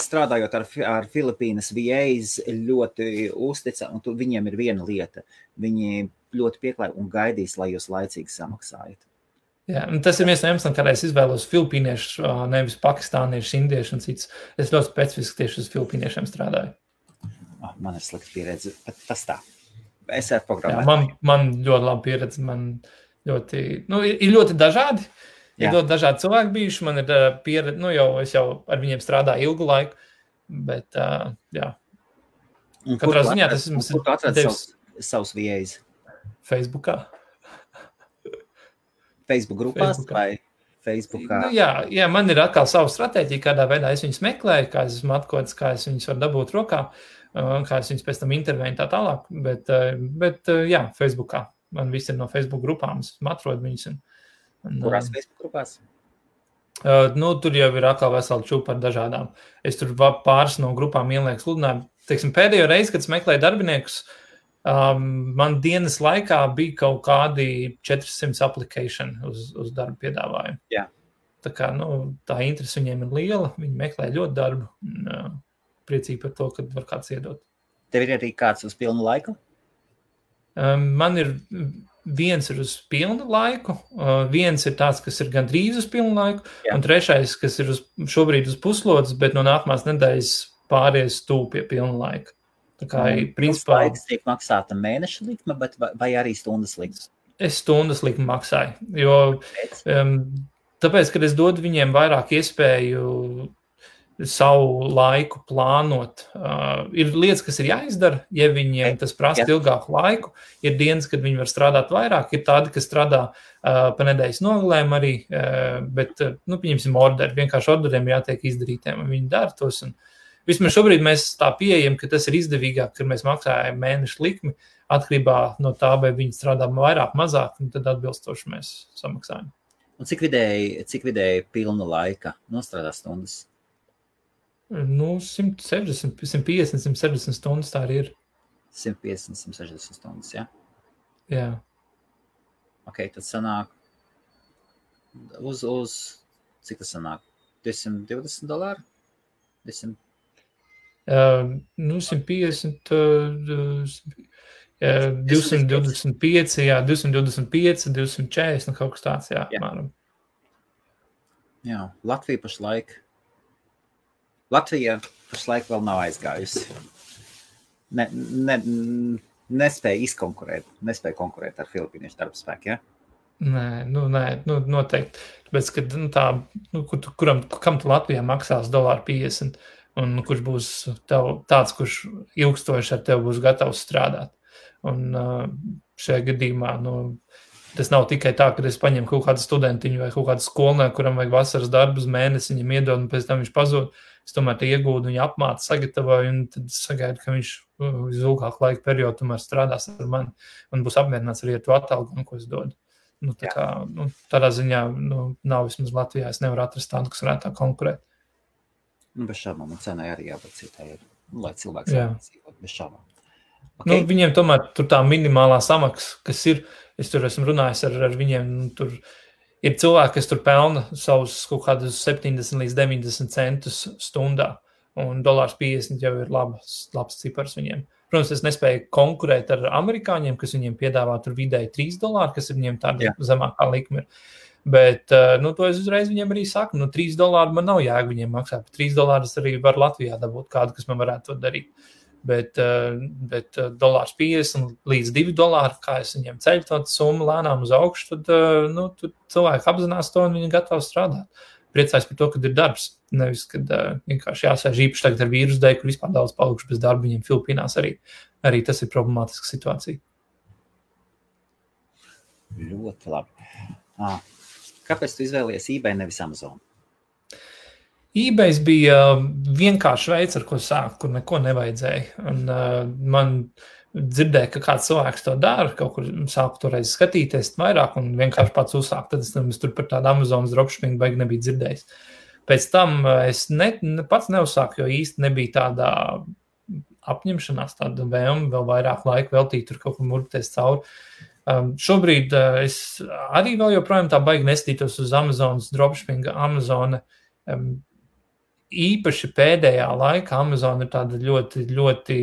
strādājot ar Filipīnas VAs, ļoti uztica, un viņiem ir viena lieta. Viņi ļoti pieklāj un gaidīs, lai jūs laicīgi samaksājat. Jā, un tas ir viens no iemesliem, kādēļ es izvēlos filipīniešu, nevis pakistāniešu, indiešu un cits. Es ļoti specifiski tieši uz filipīniešiem strādāju. Man ir slikta pieredze, bet tas tā. Es ar programmēju. Jā, man ļoti laba pieredze, man ļoti, ir ļoti dažādi. Ir ļoti dažādi cilvēki bijuši, man ir pieredze, es jau ar viņiem strādāju ilgu laiku, bet, jā. Katrā ziņā tas ir... Kur tu atradi savus VAs? Facebookā. Facebook grupās vai Facebookā? Jā, man ir atkal savu stratēģiju, kādā veidā es viņus meklēju, kā es esmu atkods, kā es viņus varu dabūt rokā, kā es viņus pēc tam intervēju tā tālāk, bet jā, Facebookā. Man viss ir no Facebook grupām, es atrodu viņus. Kurās Facebook grupās? Tur jau ir atkal veseli čūpa ar dažādām. Es tur pāris no grupām ielieku sludinājumu. Teiksim, pēdējo reizi, kad es meklēju darbiniekus, man dienas laikā bija kaut kādi 400 application uz darbu piedāvājumu. Jā. Tā kā, tā interese viņiem ir liela, viņi meklē ļoti darbu. Priecīgi par to, kad var kāds iedot. Tev ir arī kāds uz pilnu laiku? Man ir viens ir uz pilnu laiku, viens ir tāds, kas ir gandrīz uz pilnu laiku, un trešais, kas ir šobrīd uz puslodes, bet no nākamās nedēļas pāries tūp pie pilnu laika. Tā kā, principā... Laiks tiek maksāta mēneša likme, vai arī stundas likme? Es stundas likmi maksāju, jo tāpēc, kad es dodu viņiem vairāk iespēju savu laiku plānot. Ir lietas, kas ir jāizdara, ja viņiem tas prasa ilgāku laiku. Ir dienas, kad viņi var strādāt vairāk, ir tādi, kas strādā pa nedēļas nogalēm arī, bet, pieņemsim orderi, vienkārši orderiem jātiek izdarītiem, un viņi dara tos. Un vismaz šobrīd mēs tā pieejam, ka tas ir izdevīgāk, kad mēs maksājam mēnešu likmi, atkarībā no tā, vai viņi strādā vairāk, mazāk, un tad atbilstoši mēs samaksājam. Un cik vidēji pilna laika nostrādā stundas? 160, 150, 160 stundas tā arī ir. 150, 160 stundas, jā? Jā. Ok, tad sanāk uz cik tas sanāk? $220? 200? 150, 225, jā, 225, 240, kaut kas tāds, jā. Jā, Latvija pašlaik vēl nav aizgājusi. Nespēja konkurēt ar filipīniešu darbspēku, ja? Nē, noteikti. Tāpēc, ka kam tu Latvijā maksās $1.50, un kurš būs tāds, kurš ilgstoši ar tevi būs gatavs strādāt. Un šajā gadījumā, tas nav tikai tā, ka es paņemu kaut kādu studentiņu vai kaut kādu skolnieku, kuram vajag vasaras darbu uz mēnesi, viņam iedod, un pēc tam viņš pazūd. Es tomēr te iegūdu, viņu apmācu, sagatavoju, un tad sagaidu, ka viņš uz ilgāku laiku periodu tomēr strādās ar mani un būs apmierināts arī ar to atalgojumu, ko es dodu. Tādā ziņā nav vismaz Latvijā, es nevaru atrast tādu, kas varētu tā konkurēt. Bez šābām, un cenai arī jābūt citai, lai cilvēks dzīvot bez šābām. Okay. Viņiem tomēr tur tā minimālā samaksa, kas ir, es tur esmu runājis ar viņiem, tur ir cilvēki, kas tur pelna savus kaut kādus 70 līdz 90 centus stundā, un $1.50 jau ir labs cipars viņiem. Protams, es nespēju konkurēt ar amerikāņiem, kas viņiem piedāvā tur vidēji $3, kas ir viņiem tāda zemākā likme. Bet, to es uzreiz viņiem arī saku, $3 man nav jēga viņiem maksāt, $3 arī var Latvijā dabūt kādu, kas man varētu to darīt. Bet $1.50 līdz $2, kā es viņiem ceļu to summu lēnām uz augšu, tad cilvēki apzinās to un viņi gatavi strādāt. Priecājos par to, kad ir darbs. Nevis, kad vienkārši jāsēž īpaši tagad ar vīrusu dēļ, kur vispār daudz palikuši bez darba, viņiem Filipīnās arī tas ir problemātiska situācija. Ļoti labi. Kāpēc tu izvēlies eBay nevis Amazon? eBay bija vienkārši veids, ar ko sākt, kur neko nevajadzēja. Un man dzirdēja, ka kāds cilvēks to dara, kaut kur sāku toreiz skatīties vairāk un vienkārši pats uzsākt. Tad es tur par tādu Amazonas dropshipping baigi nebija dzirdējis. Pēc tam es pats neuzsāku, jo īsti nebija tādā apņemšanās, tāda vēlme vēl vairāk laika veltīt, tur kaut kur murpties cauri. Šobrīd es arī vēl joprojām tā baigi nestītos uz Amazonas dropshipping. Amazona īpaši pēdējā laikā Amazon ir tāda ļoti, ļoti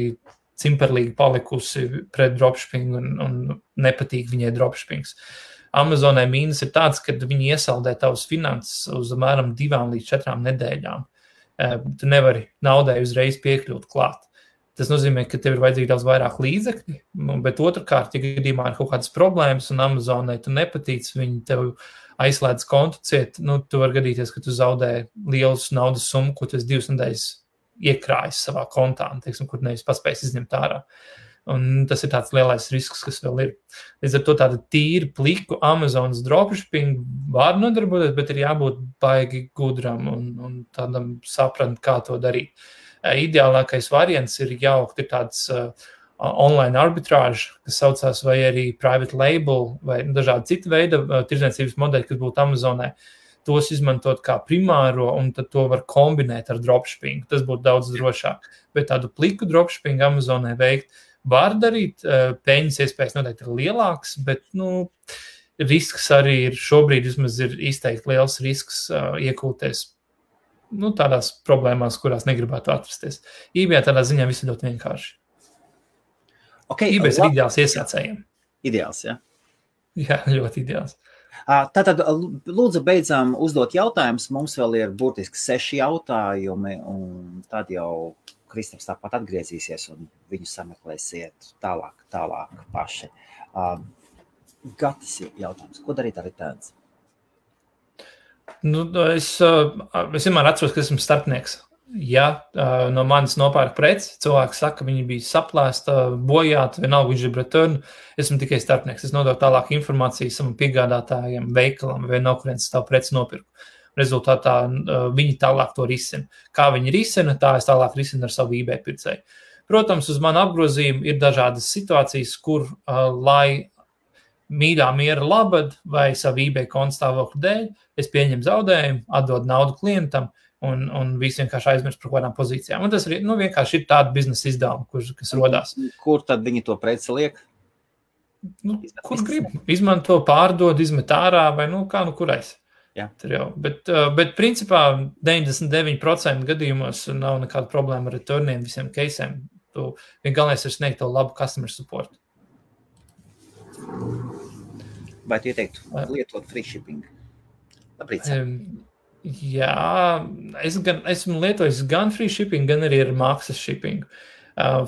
cimperlīgi palikusi pret dropshipping un nepatīk viņai dropshippings. Amazonai mīnus ir tāds, ka viņi iesaldē tavas finanses uz apmēram 2 līdz 4 nedēļām. Tu nevari naudai uzreiz piekļūt klāt. Tas nozīmē, ka tev ir vajadzīgi daudz vairāk līdzekļi, bet otrkārt, ja gadījumā ir kaut kādas problēmas un Amazonai tu nepatīc, viņi tev aizslēdz kontu ciet, tu var gadīties, ka tu zaudē lielus naudas summu, ko tu esi 2 nedēļas iekrājis savā kontā, kur nevis paspējis izņemt ārā. Un tas ir tāds lielais risks, kas vēl ir. Līdz ar to tāda tīri pliku Amazonas dropshipping var nodarboties, bet ir jābūt baigi gudram un tādam saprast, kā to darīt. Ideālākais variants ir jaukt ir tāds online arbitrāža, kas saucās vai arī private label vai dažādi citi veidi tirdzniecības modeļi, kas būtu Amazonē. Tos izmantot kā primāro un tad to var kombinēt ar dropshipping. Tas būtu daudz drošāk. Bet tādu pliku dropshipping Amazonē veikt var darīt, peļņas iespējas noteikti ir lielāks, bet risks arī ir šobrīd vismaz ir izteikti liels risks iekūties tādās problēmās, kurās negribētu atrasties. eBay tādā ziņā viss ir ļoti vienkārši. Okay, eBay ir ideāls iesācējiem. Ideāls, ja? Jā, ļoti ideāls. Tātad, lūdzu, beidzām uzdot jautājumus. Mums vēl ir burtiski 6 jautājumi, un tad jau Kristaps tāpat atgriezīsies, un viņu sameklēsiet tālāk paši. Gatis jautājums. Ko darīt ar returns? Es vienmēr atceros, ka esmu starpnieks. Ja no manis nopērk preci, cilvēks saka, ka viņi bija saplēsta, bojāta, vienalga viņš ir return, esmu tikai starpnieks. Es nododu tālāk informāciju savam piegādātājiem, veikalam, vai no kurienes tavu preci nopirku. Rezultātā viņi tālāk to risina. Kā viņi risina, tā es tālāk risinu ar savu eBay pircēju. Protams, uz manu apgrozījumu ir dažādas situācijas, kur, lai mīļā miera labad vai savu eBay konta stāvokļu dēļ, es pieņemu zaudējumu, atdodu naudu klientam un visi vienkārši aizmirst par kādām pozīcijām. Un tas ir, vienkārši ir tāda biznesa izdevuma, kas rodās. Kur tad viņi to preci liek? Kur grib? Izmanto, pārdod, izmet ārā vai kurais. Jā. Bet principā 99% gadījumos nav nekāda problēma ar returniem, visiem case'iem. Galvenais ir sniegt to labu customer support. Vai tu ieteiktu lietot free shipping? Labrīt. Jā, esmu lietojis gan free shipping, gan arī ar maksas shipping.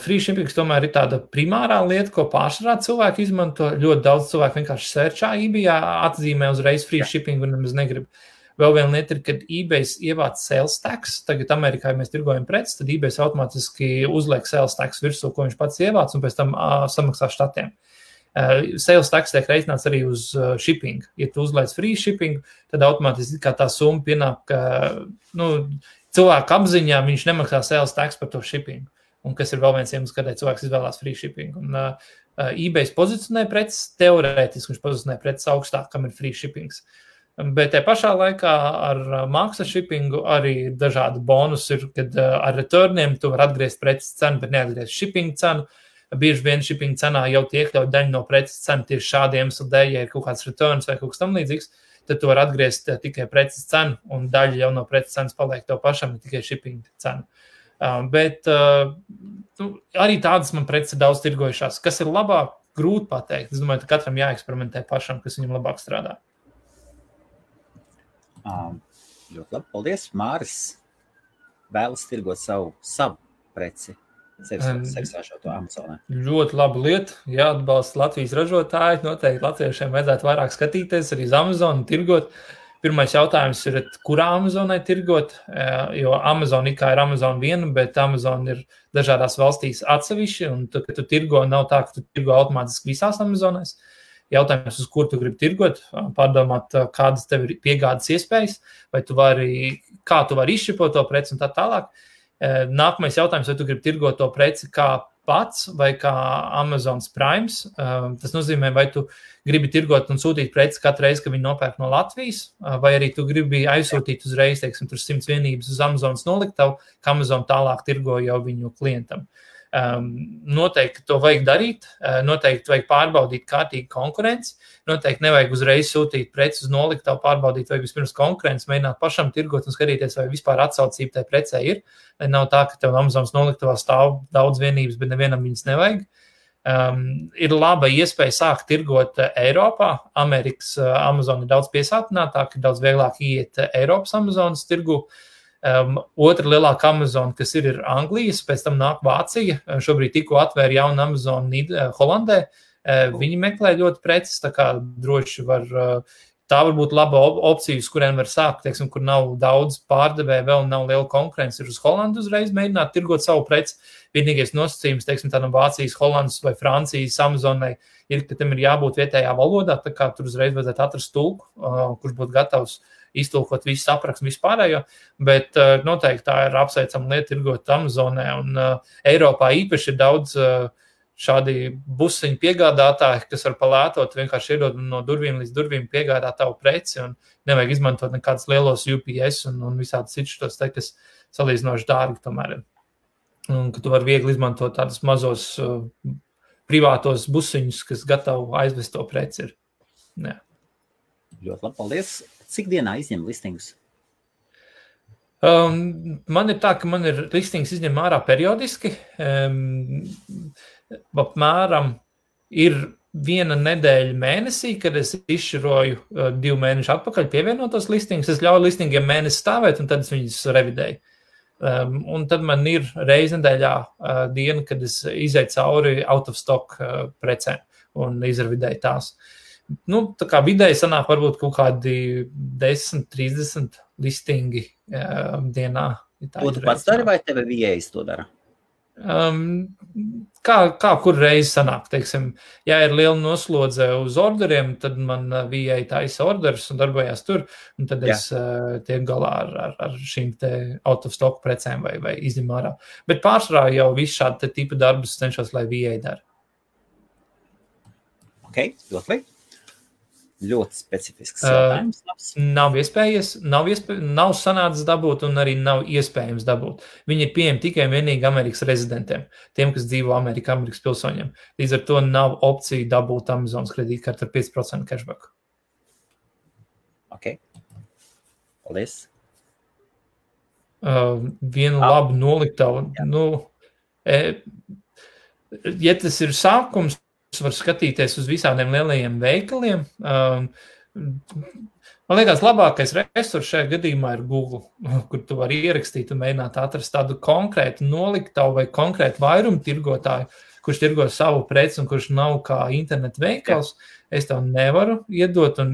Free shipping tomēr ir tāda primārā lieta, ko pārsvarā cilvēki izmanto. Ļoti daudz cilvēku vienkārši searchā eBay, atzīmē uzreiz free shipping un nemaz negrib. Vēl viena lieta ir, kad eBay ievāc sales tax. Tagad Amerikā, ja mēs tirgojam preces, tad eBay automātiski uzliek sales tax virsū, ko viņš pats ievāc, un pēc tam samaksā štatiem. Sales tax tiek reiķināts arī uz shipping. Ja tu uzliec free shipping, tad automātiski kā tā summa pienāk, ka cilvēku apziņā viņš nemaksā sales tax par to shipping. Un kas ir vēl viens iemesls, kādēļ cilvēks izvēlās free shipping. Un eBay pozicionē preces, teorētiski viņš pozicionē preces augstāk, kam ir free shippings. Bet te pašā laikā ar maksas shippingu arī dažādi bonus ir, kad ar returniem tu var atgriezt preces cenu, bet neatgriezt shipping cenu. Bieži vien shipping cenā jau iekļaut daļu no preces cenu tieši šādiem iemeslu dēļ, ja ir kaut kāds returns vai kaut kas tam līdzīgs, tad tu var atgriezt tikai preces cenu un daļa jau no preces cenas paliek tev pašam, ne tikai shipping cenu. Bet arī tādas man preces ir daudz tirgojušās. Kas ir labāk, grūti pateikt. Es domāju, ka katram jāeksperimentē pašam, kas viņam labāk strādā. Ļoti labi, paldies. Māris vēlas tirgot savu preci. sevis ražoto Amazonē? Ļoti laba lieta, jāatbalsta Latvijas ražotāji, noteikti latviešiem vajadzētu vairāk skatīties arī uz Amazonu, tirgot. Pirmais jautājums ir, kurā Amazonai tirgot, jo Amazon ir Amazon viena, bet Amazon ir dažādās valstīs atsevišķi, un tu, kad tu tirgo, nav tā, ka tu tirgo automātiski visās Amazonēs. Jautājums, uz kur tu gribi tirgot, pārdomāt, kādas tev ir piegādes iespējas, vai kā tu vari izšķipot to preci un tā tālāk. Nākamais jautājums, vai tu gribi tirgot to preci kā pats vai kā Amazons Primes. Tas nozīmē, vai tu gribi tirgot un sūtīt preci katru reizi, kad viņi nopērk no Latvijas, vai arī tu gribi aizsūtīt uzreiz, teiksim, tur 100 vienības uz Amazonas noliktavu, ka Amazon tālāk tirgo jau viņu klientam. Noteikti to vajag darīt, noteikti vajag pārbaudīt kārtīgi konkurenci, noteikti nevajag uzreiz sūtīt preci uz noliktavu, pārbaudīt, vajag vispirms konkurenci, mēģināt pašam tirgot un skatīties, vai vispār atsaucība tai precē ir. Nav tā, ka tev Amazonas noliktavā stāv daudz vienības, bet nevienam viņas nevajag. Ir laba iespēja sākt tirgot Eiropā. Amerikas Amazon ir daudz piesātinātāk, ir daudz vieglāk iet Eiropas Amazonas tirgu. Otra lielāka Amazon, kas ir Anglijas, pēc tam nāk Vācija. Šobrīd tikko atvēra jaunu Amazon Holandē. Viņi meklē ļoti preces, tā kā droši tā var būt laba opcija, uz kuriem var sākt, teiksim, kur nav daudz pārdevēja, vēl nav liela konkurence, ir uz Holandu uzreiz mēģināt tirgot savu preci. Vienīgais nosacījums, teiksim, tādam Vācijas, Holandas vai Francijas Amazonai ir, ka tam ir jābūt vietējā valodā, tā kā tur uzreiz vajadzētu atrast tulku, kurš būtu gatavs iztulkot visu aprakstu vispārējo, bet noteikti tā ir apsveicama lieta tirgot Amazonē, un Eiropā īpaši ir daudz šādi busiņu piegādātāji, kas var palētot, vienkārši iedod no durvīm līdz durvīm piegādāt tavu preci, un nevajag izmantot nekādus lielos UPS un visādus citus, kas salīdzinoši dārgi tomēr ir. Un ka tu vari viegli izmantot tādus mazos privātos busiņus, kas gatavi aizvest to preci ir. Jā. Ļoti labi, paldies. Cik dienā izņem listingus? Man ir tā, ka man ir listings izņem ārā periodiski. Apmēram ir 1 nedēļa mēnesī, kad es izšķiroju 2 mēnešu atpakaļ pievienotos listingus. Es ļauju listingiem mēnesi stāvēt, un tad es viņus revidēju. Un tad man ir reiz nedēļā diena, kad es izēju cauri out of stock precēm un izrevidēju tās. Tā kā vidēji sanāk varbūt kaut kādi 10-30 listingi dienā. To tu pats dari vai tevi VAs to dara? Kā kur reizi sanāk, teiksim, ja ir liela noslodze uz orderiem, tad man VA taisa orders un darbojās tur, un tad es tiek galā ar šīm te out of stock precēm vai izņem ārā. Bet pārsvarā jau visu šādu tipu darbus cenšos, lai VA dara. Ok, ļoti. Ļoti specifisks jautājums. Nav iespējas, nav sanācis dabūt un arī nav iespējams dabūt. Viņi ir pieejami tikai vienīgi Amerikas rezidentiem, tiem, kas dzīvo Amerikas pilsoņiem. Līdz ar to nav opcija dabūt Amazonas kredītkarti ar 5% cashback. Ok. Paldies. Vienu labu noliktavu. Ja tas ir sākums, var skatīties uz visādiem lielajiem veikaliem. Man liekas, labākais resurs šajā gadījumā ir Google, kur tu vari ierakstīt un mēģināt atrast tādu konkrētu noliktavu vai konkrētu vairumu tirgotāju, kurš tirgo savu preci un kurš nav kā internetu veikals. Es tev nevaru iedot tā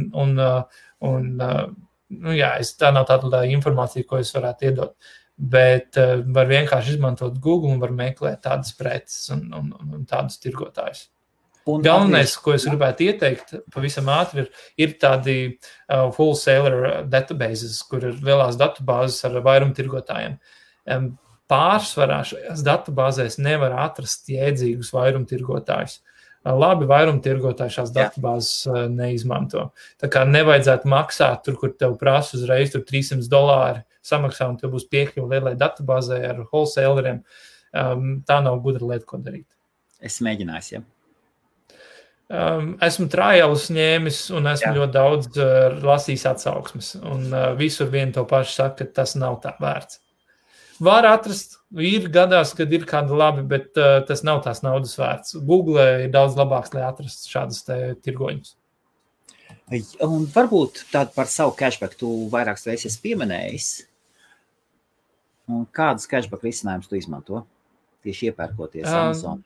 nav tāda informācija, ko es varētu iedot. Bet var vienkārši izmantot Google un var meklēt tādas preces un tādus tirgotājus. Galvenais, ko es gribētu ieteikt, pavisam ātri, ir tādi wholesaler databases, kur ir lielās datubāzes ar vairumtirgotājiem. Pārsvarā šajās datubāzēs nevar atrast jēdzīgus vairumtirgotājus. Labi vairumtirgotāji šās datubāzes neizmanto. Tā kā nevajadzētu maksāt tur, kur tev prasa uzreiz tur $300 samaksā, un tev būs piekļuva lielai datubāzē ar wholesaleriem. Tā nav gudra lieta, ko darīt. Es mēģināju, Esmu trialus ņēmis un esmu ļoti daudz lasījis atsauksmes. Un visur vien to pašu saka, ka tas nav tā vērts. Var atrast, ir gadās, kad ir kāda labi, bet tas nav tās naudas vērts. Google ir daudz labāks, lai atrastu šādas tirgoņus. Un varbūt tādu par savu cashback tu vairākas reizes pieminējis. Un kādus cashback risinājumus tu izmanto? tieši iepērkoties Amazon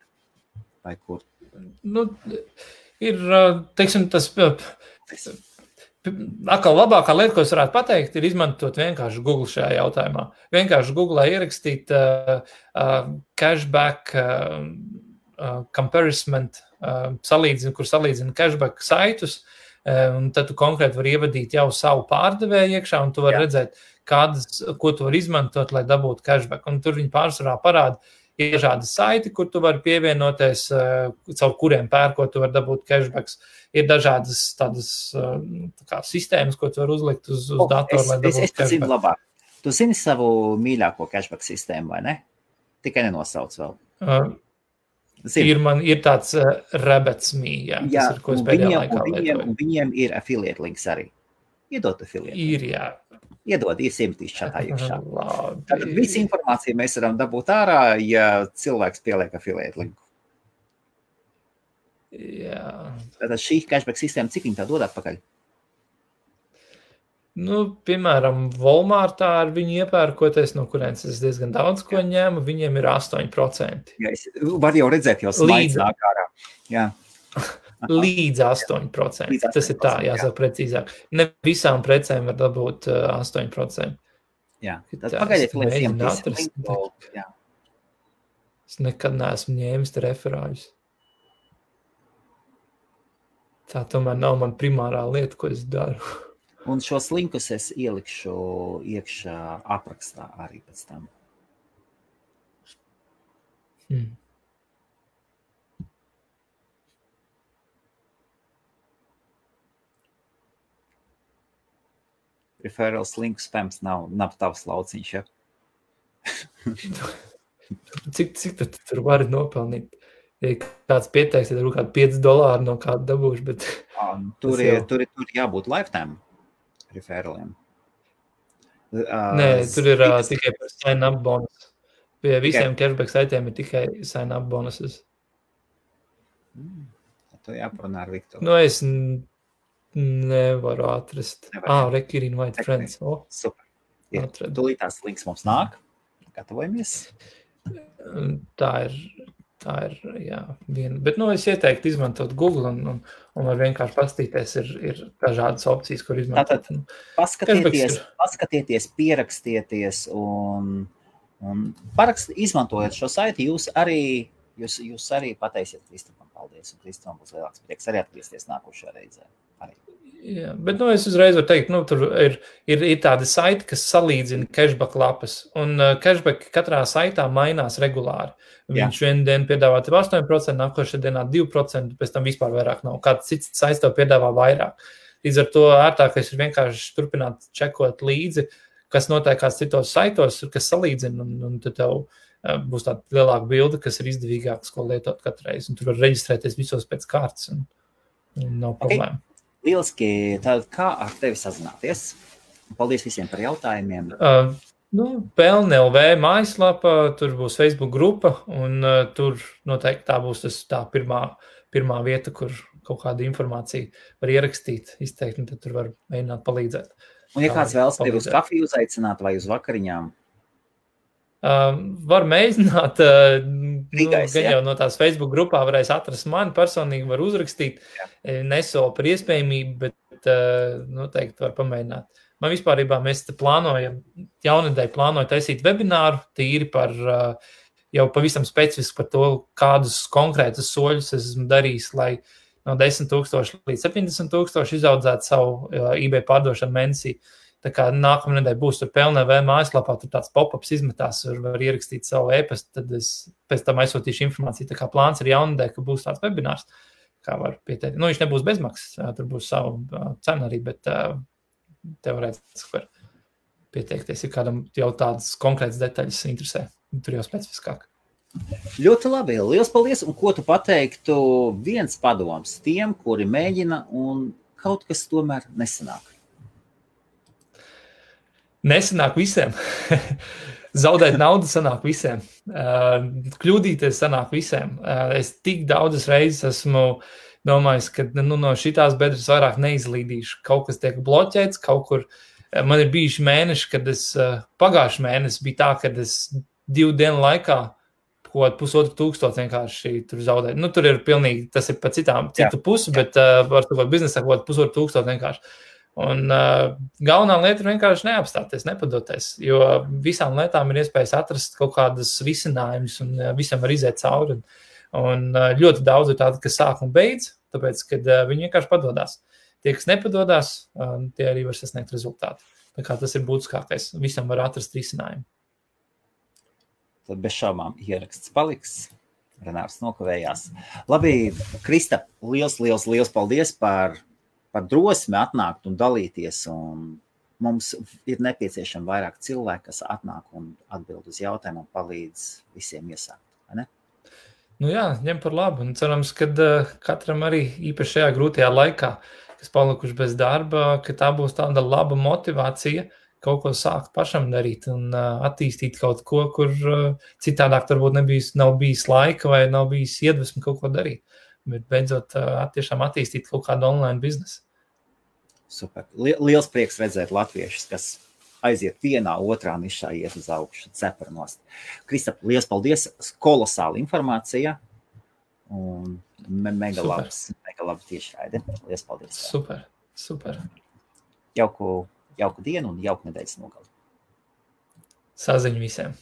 vai kur? Nu, ir, teiksim, tas atkal labākā lieta, ko es varētu pateikt, ir izmantot vienkārši Google šajā jautājumā. Vienkārši Google ierakstīt cashback comparison, kur salīdzina cashback saitus, un tad tu konkrēti vari ievadīt jau savu pārdevēju iekšā, un tu vari redzēt, ko tu vari izmantot, lai dabūtu cashback. Un tur viņi pārsvarā parāda, ir dažādi saiti, kur tu vari pievienoties, caur kuriem pērkot, tu vari dabūt cashbacks. Ir dažādas tādas sistēmas, ko tu vari uzlikt uz datoru, lai dabūtu cashback. Es zinu labāk. Tu zini savu mīļāko cashback sistēmu, vai ne? Tikai nenosauc vēl. Ir tāds Rabbits.me, tas ir, ko es pēdējā laikā lietoju. Un viņiem ir affiliate links arī. Iedod affiliate. Ir, jā. Iedod, iesimtīs čatā iekšā. Tātad visu informāciju mēs varam dabūt ārā, ja cilvēks pieliek affiliate linku. Jā. Tātad šī cashback sistēma, cik viņi tā dod atpakaļ? Nu, piemēram, Walmartā ar viņu iepērkoties, no kurienes es diezgan daudz ko ņēmu, viņiem ir 8%. Jā, var jau redzēt, jau slaids nāk ārā. Jā. Līdz 8%. Tas ir tā, jāsaka precīzāk. Ne visām precēm var dabūt 8%. Jā, tad pagaidiet, lai linku. Es nekad neesmu ņēmis te referāļus. Tā tomēr nav man primārā lieta, ko es daru. Un šos linkus es ielikšu iekšā aprakstā arī pēc tam. Referrals link spams nav tavs lauciņš, ja? Cik tad tur vari nopelnīt? Ja kāds pieteiks, tad ir kādi $5 no kāda dabūšu, bet... Tur ir jābūt lifetime referraliem. Nē, tur ir tikai par sign-up bonus. Pie visiem cashback saitiem ir tikai sign-up bonuses. To jāparunā ar Viktoru. Nu, es nevaru atrast. Rekir invite friends. Super. Tūlītās links mums nāk. Gatavojamies. Tā ir, jā, viena. Bet, es ieteiktu izmantot Google un var vienkārši pastīties, ir dažādas opcijas, kur izmantot. Tātad paskatieties, pierakstieties un izmantojot šo saiti, jūs arī pateisiet Kristupam paldies, un Kristupam būs lielāks prieks arī atgriezties nākošajā reizē. Jā, bet es uzreiz varu teikt, tur ir tādi saiti, kas salīdzina cashback lapas, un cashback katrā saitā mainās regulāri. Viņš vienu dienu piedāvā 8%, nākošajā dienā 2%, pēc tam vispār vairāk nav. Kāds cits saits tev piedāvā vairāk. Līdz ar to ērtākais ir vienkārši turpināt čekot līdzi, kas notiek kāds citos saitos, kas salīdzina, un tad tev būs tāda lielāka bilde, kas ir izdevīgāks, ko lietot katru reizi. Un tur var reģistrēties visos pēc kārtas, un nav problēma. Lieliski, tad kā ar tevi sazināties? Paldies visiem par jautājumiem. Pelne LV mājaslapa, tur būs Facebook grupa, un tur noteikti tā būs tā pirmā vieta, kur kaut kādu informāciju var ierakstīt, izteikt, un tad tur var mēģināt palīdzēt. Un ja kāds vēlas tevi uz kafiju uzaicināt vai uz vakariņām? Var mēģināt, gan jau no tās Facebook grupā varēs atrast mani, personīgi var uzrakstīt, nesolu par iespējamību, bet noteikti var pamēģināt. Man vispārībā mēs te jaunedēļ plānoju taisīt webināru, tīri par jau pavisam specifiski par to, kādus konkrētus soļus esmu darījis, lai no 10,000 līdz 70,000 izaudzētu savu eBay pārdošanu mēnesī. Tā kā nākamā nedēļa būs tur PLNV mājaslapā, tur tāds pop-ups izmetās, var ierakstīt savu e-pastu, tad es pēc tam aizsūtīšu informāciju. Tā kā plāns ir jaunedēļ, ka būs tāds webinārs, kā var pieteikt. Viņš nebūs bezmaksas, tur būs savu cenu arī, bet teorētiski var pieteikties, ja kādam jau tādas konkrētas detaļas interesē, tur jau specifiskāk. Ļoti labi, liels paldies, un ko tu pateiktu viens padoms tiem, kuri mēģina un kaut kas tomēr nesanāk? Nesanāk visiem. Zaudēt naudu sanāk visiem. Kļūdīties sanāk visiem. Es tik daudzas reizes esmu domājis, ka no šitās bedres vairāk neizlīdīšu. Kaut kas tiek bloķēts, kaut kur. Man ir bijuši mēneši, kad pagājuši mēnesi bija tā, kad es 2 dienu laikā kaut 1,500 vienkārši tur zaudēt. Nu, tur ir pilnīgi, tas ir pa citu pusi, bet var tu biznesā kaut 1,500 vienkārši. Un galvenā lieta ir vienkārši neapstāties, nepadoties, jo visām lietām ir iespējas atrast kaut kādas risinājumus un visam var iziet cauri. Un ļoti daudz ir tādi, kas sāk un beidz, tāpēc, kad viņi vienkārši padodās. Tie, kas nepadodās, tie arī var sasniegt rezultātu. Tā kā tas ir būtiskākais. Visam var atrast risinājumu. Tad bez šaubām ieraksts paliks. Renārs nokavējās. Labi, Krista, liels paldies par drosmi atnākt un dalīties. Un mums ir nepieciešami vairāk cilvēki, kas atnāk un atbild uz jautājumu un palīdz visiem iesākt. Vai ne? Nu jā, ņem par labu. Un cerams, ka katram arī īpaši šajā grūtajā laikā, kas palikuši bez darba, ka tā būs tāda laba motivācija kaut ko sākt pašam darīt un attīstīt kaut ko, kur citādāk varbūt nav bijis laika vai nav bijis iedvesmi kaut ko darīt. Bet beidzot tiešām attīstīt kaut kādu online biznesu. Super. Liels prieks redzēt latviešus, kas aiziet vienā, otrā nišā, iet uz augšu, ceparanost. Kristap, liels paldies, kolosāla informācija un mega labi tiešraide. Liels paldies. Super. Jauku dienu un jauku nedēļas nogali. Saziņu visiem.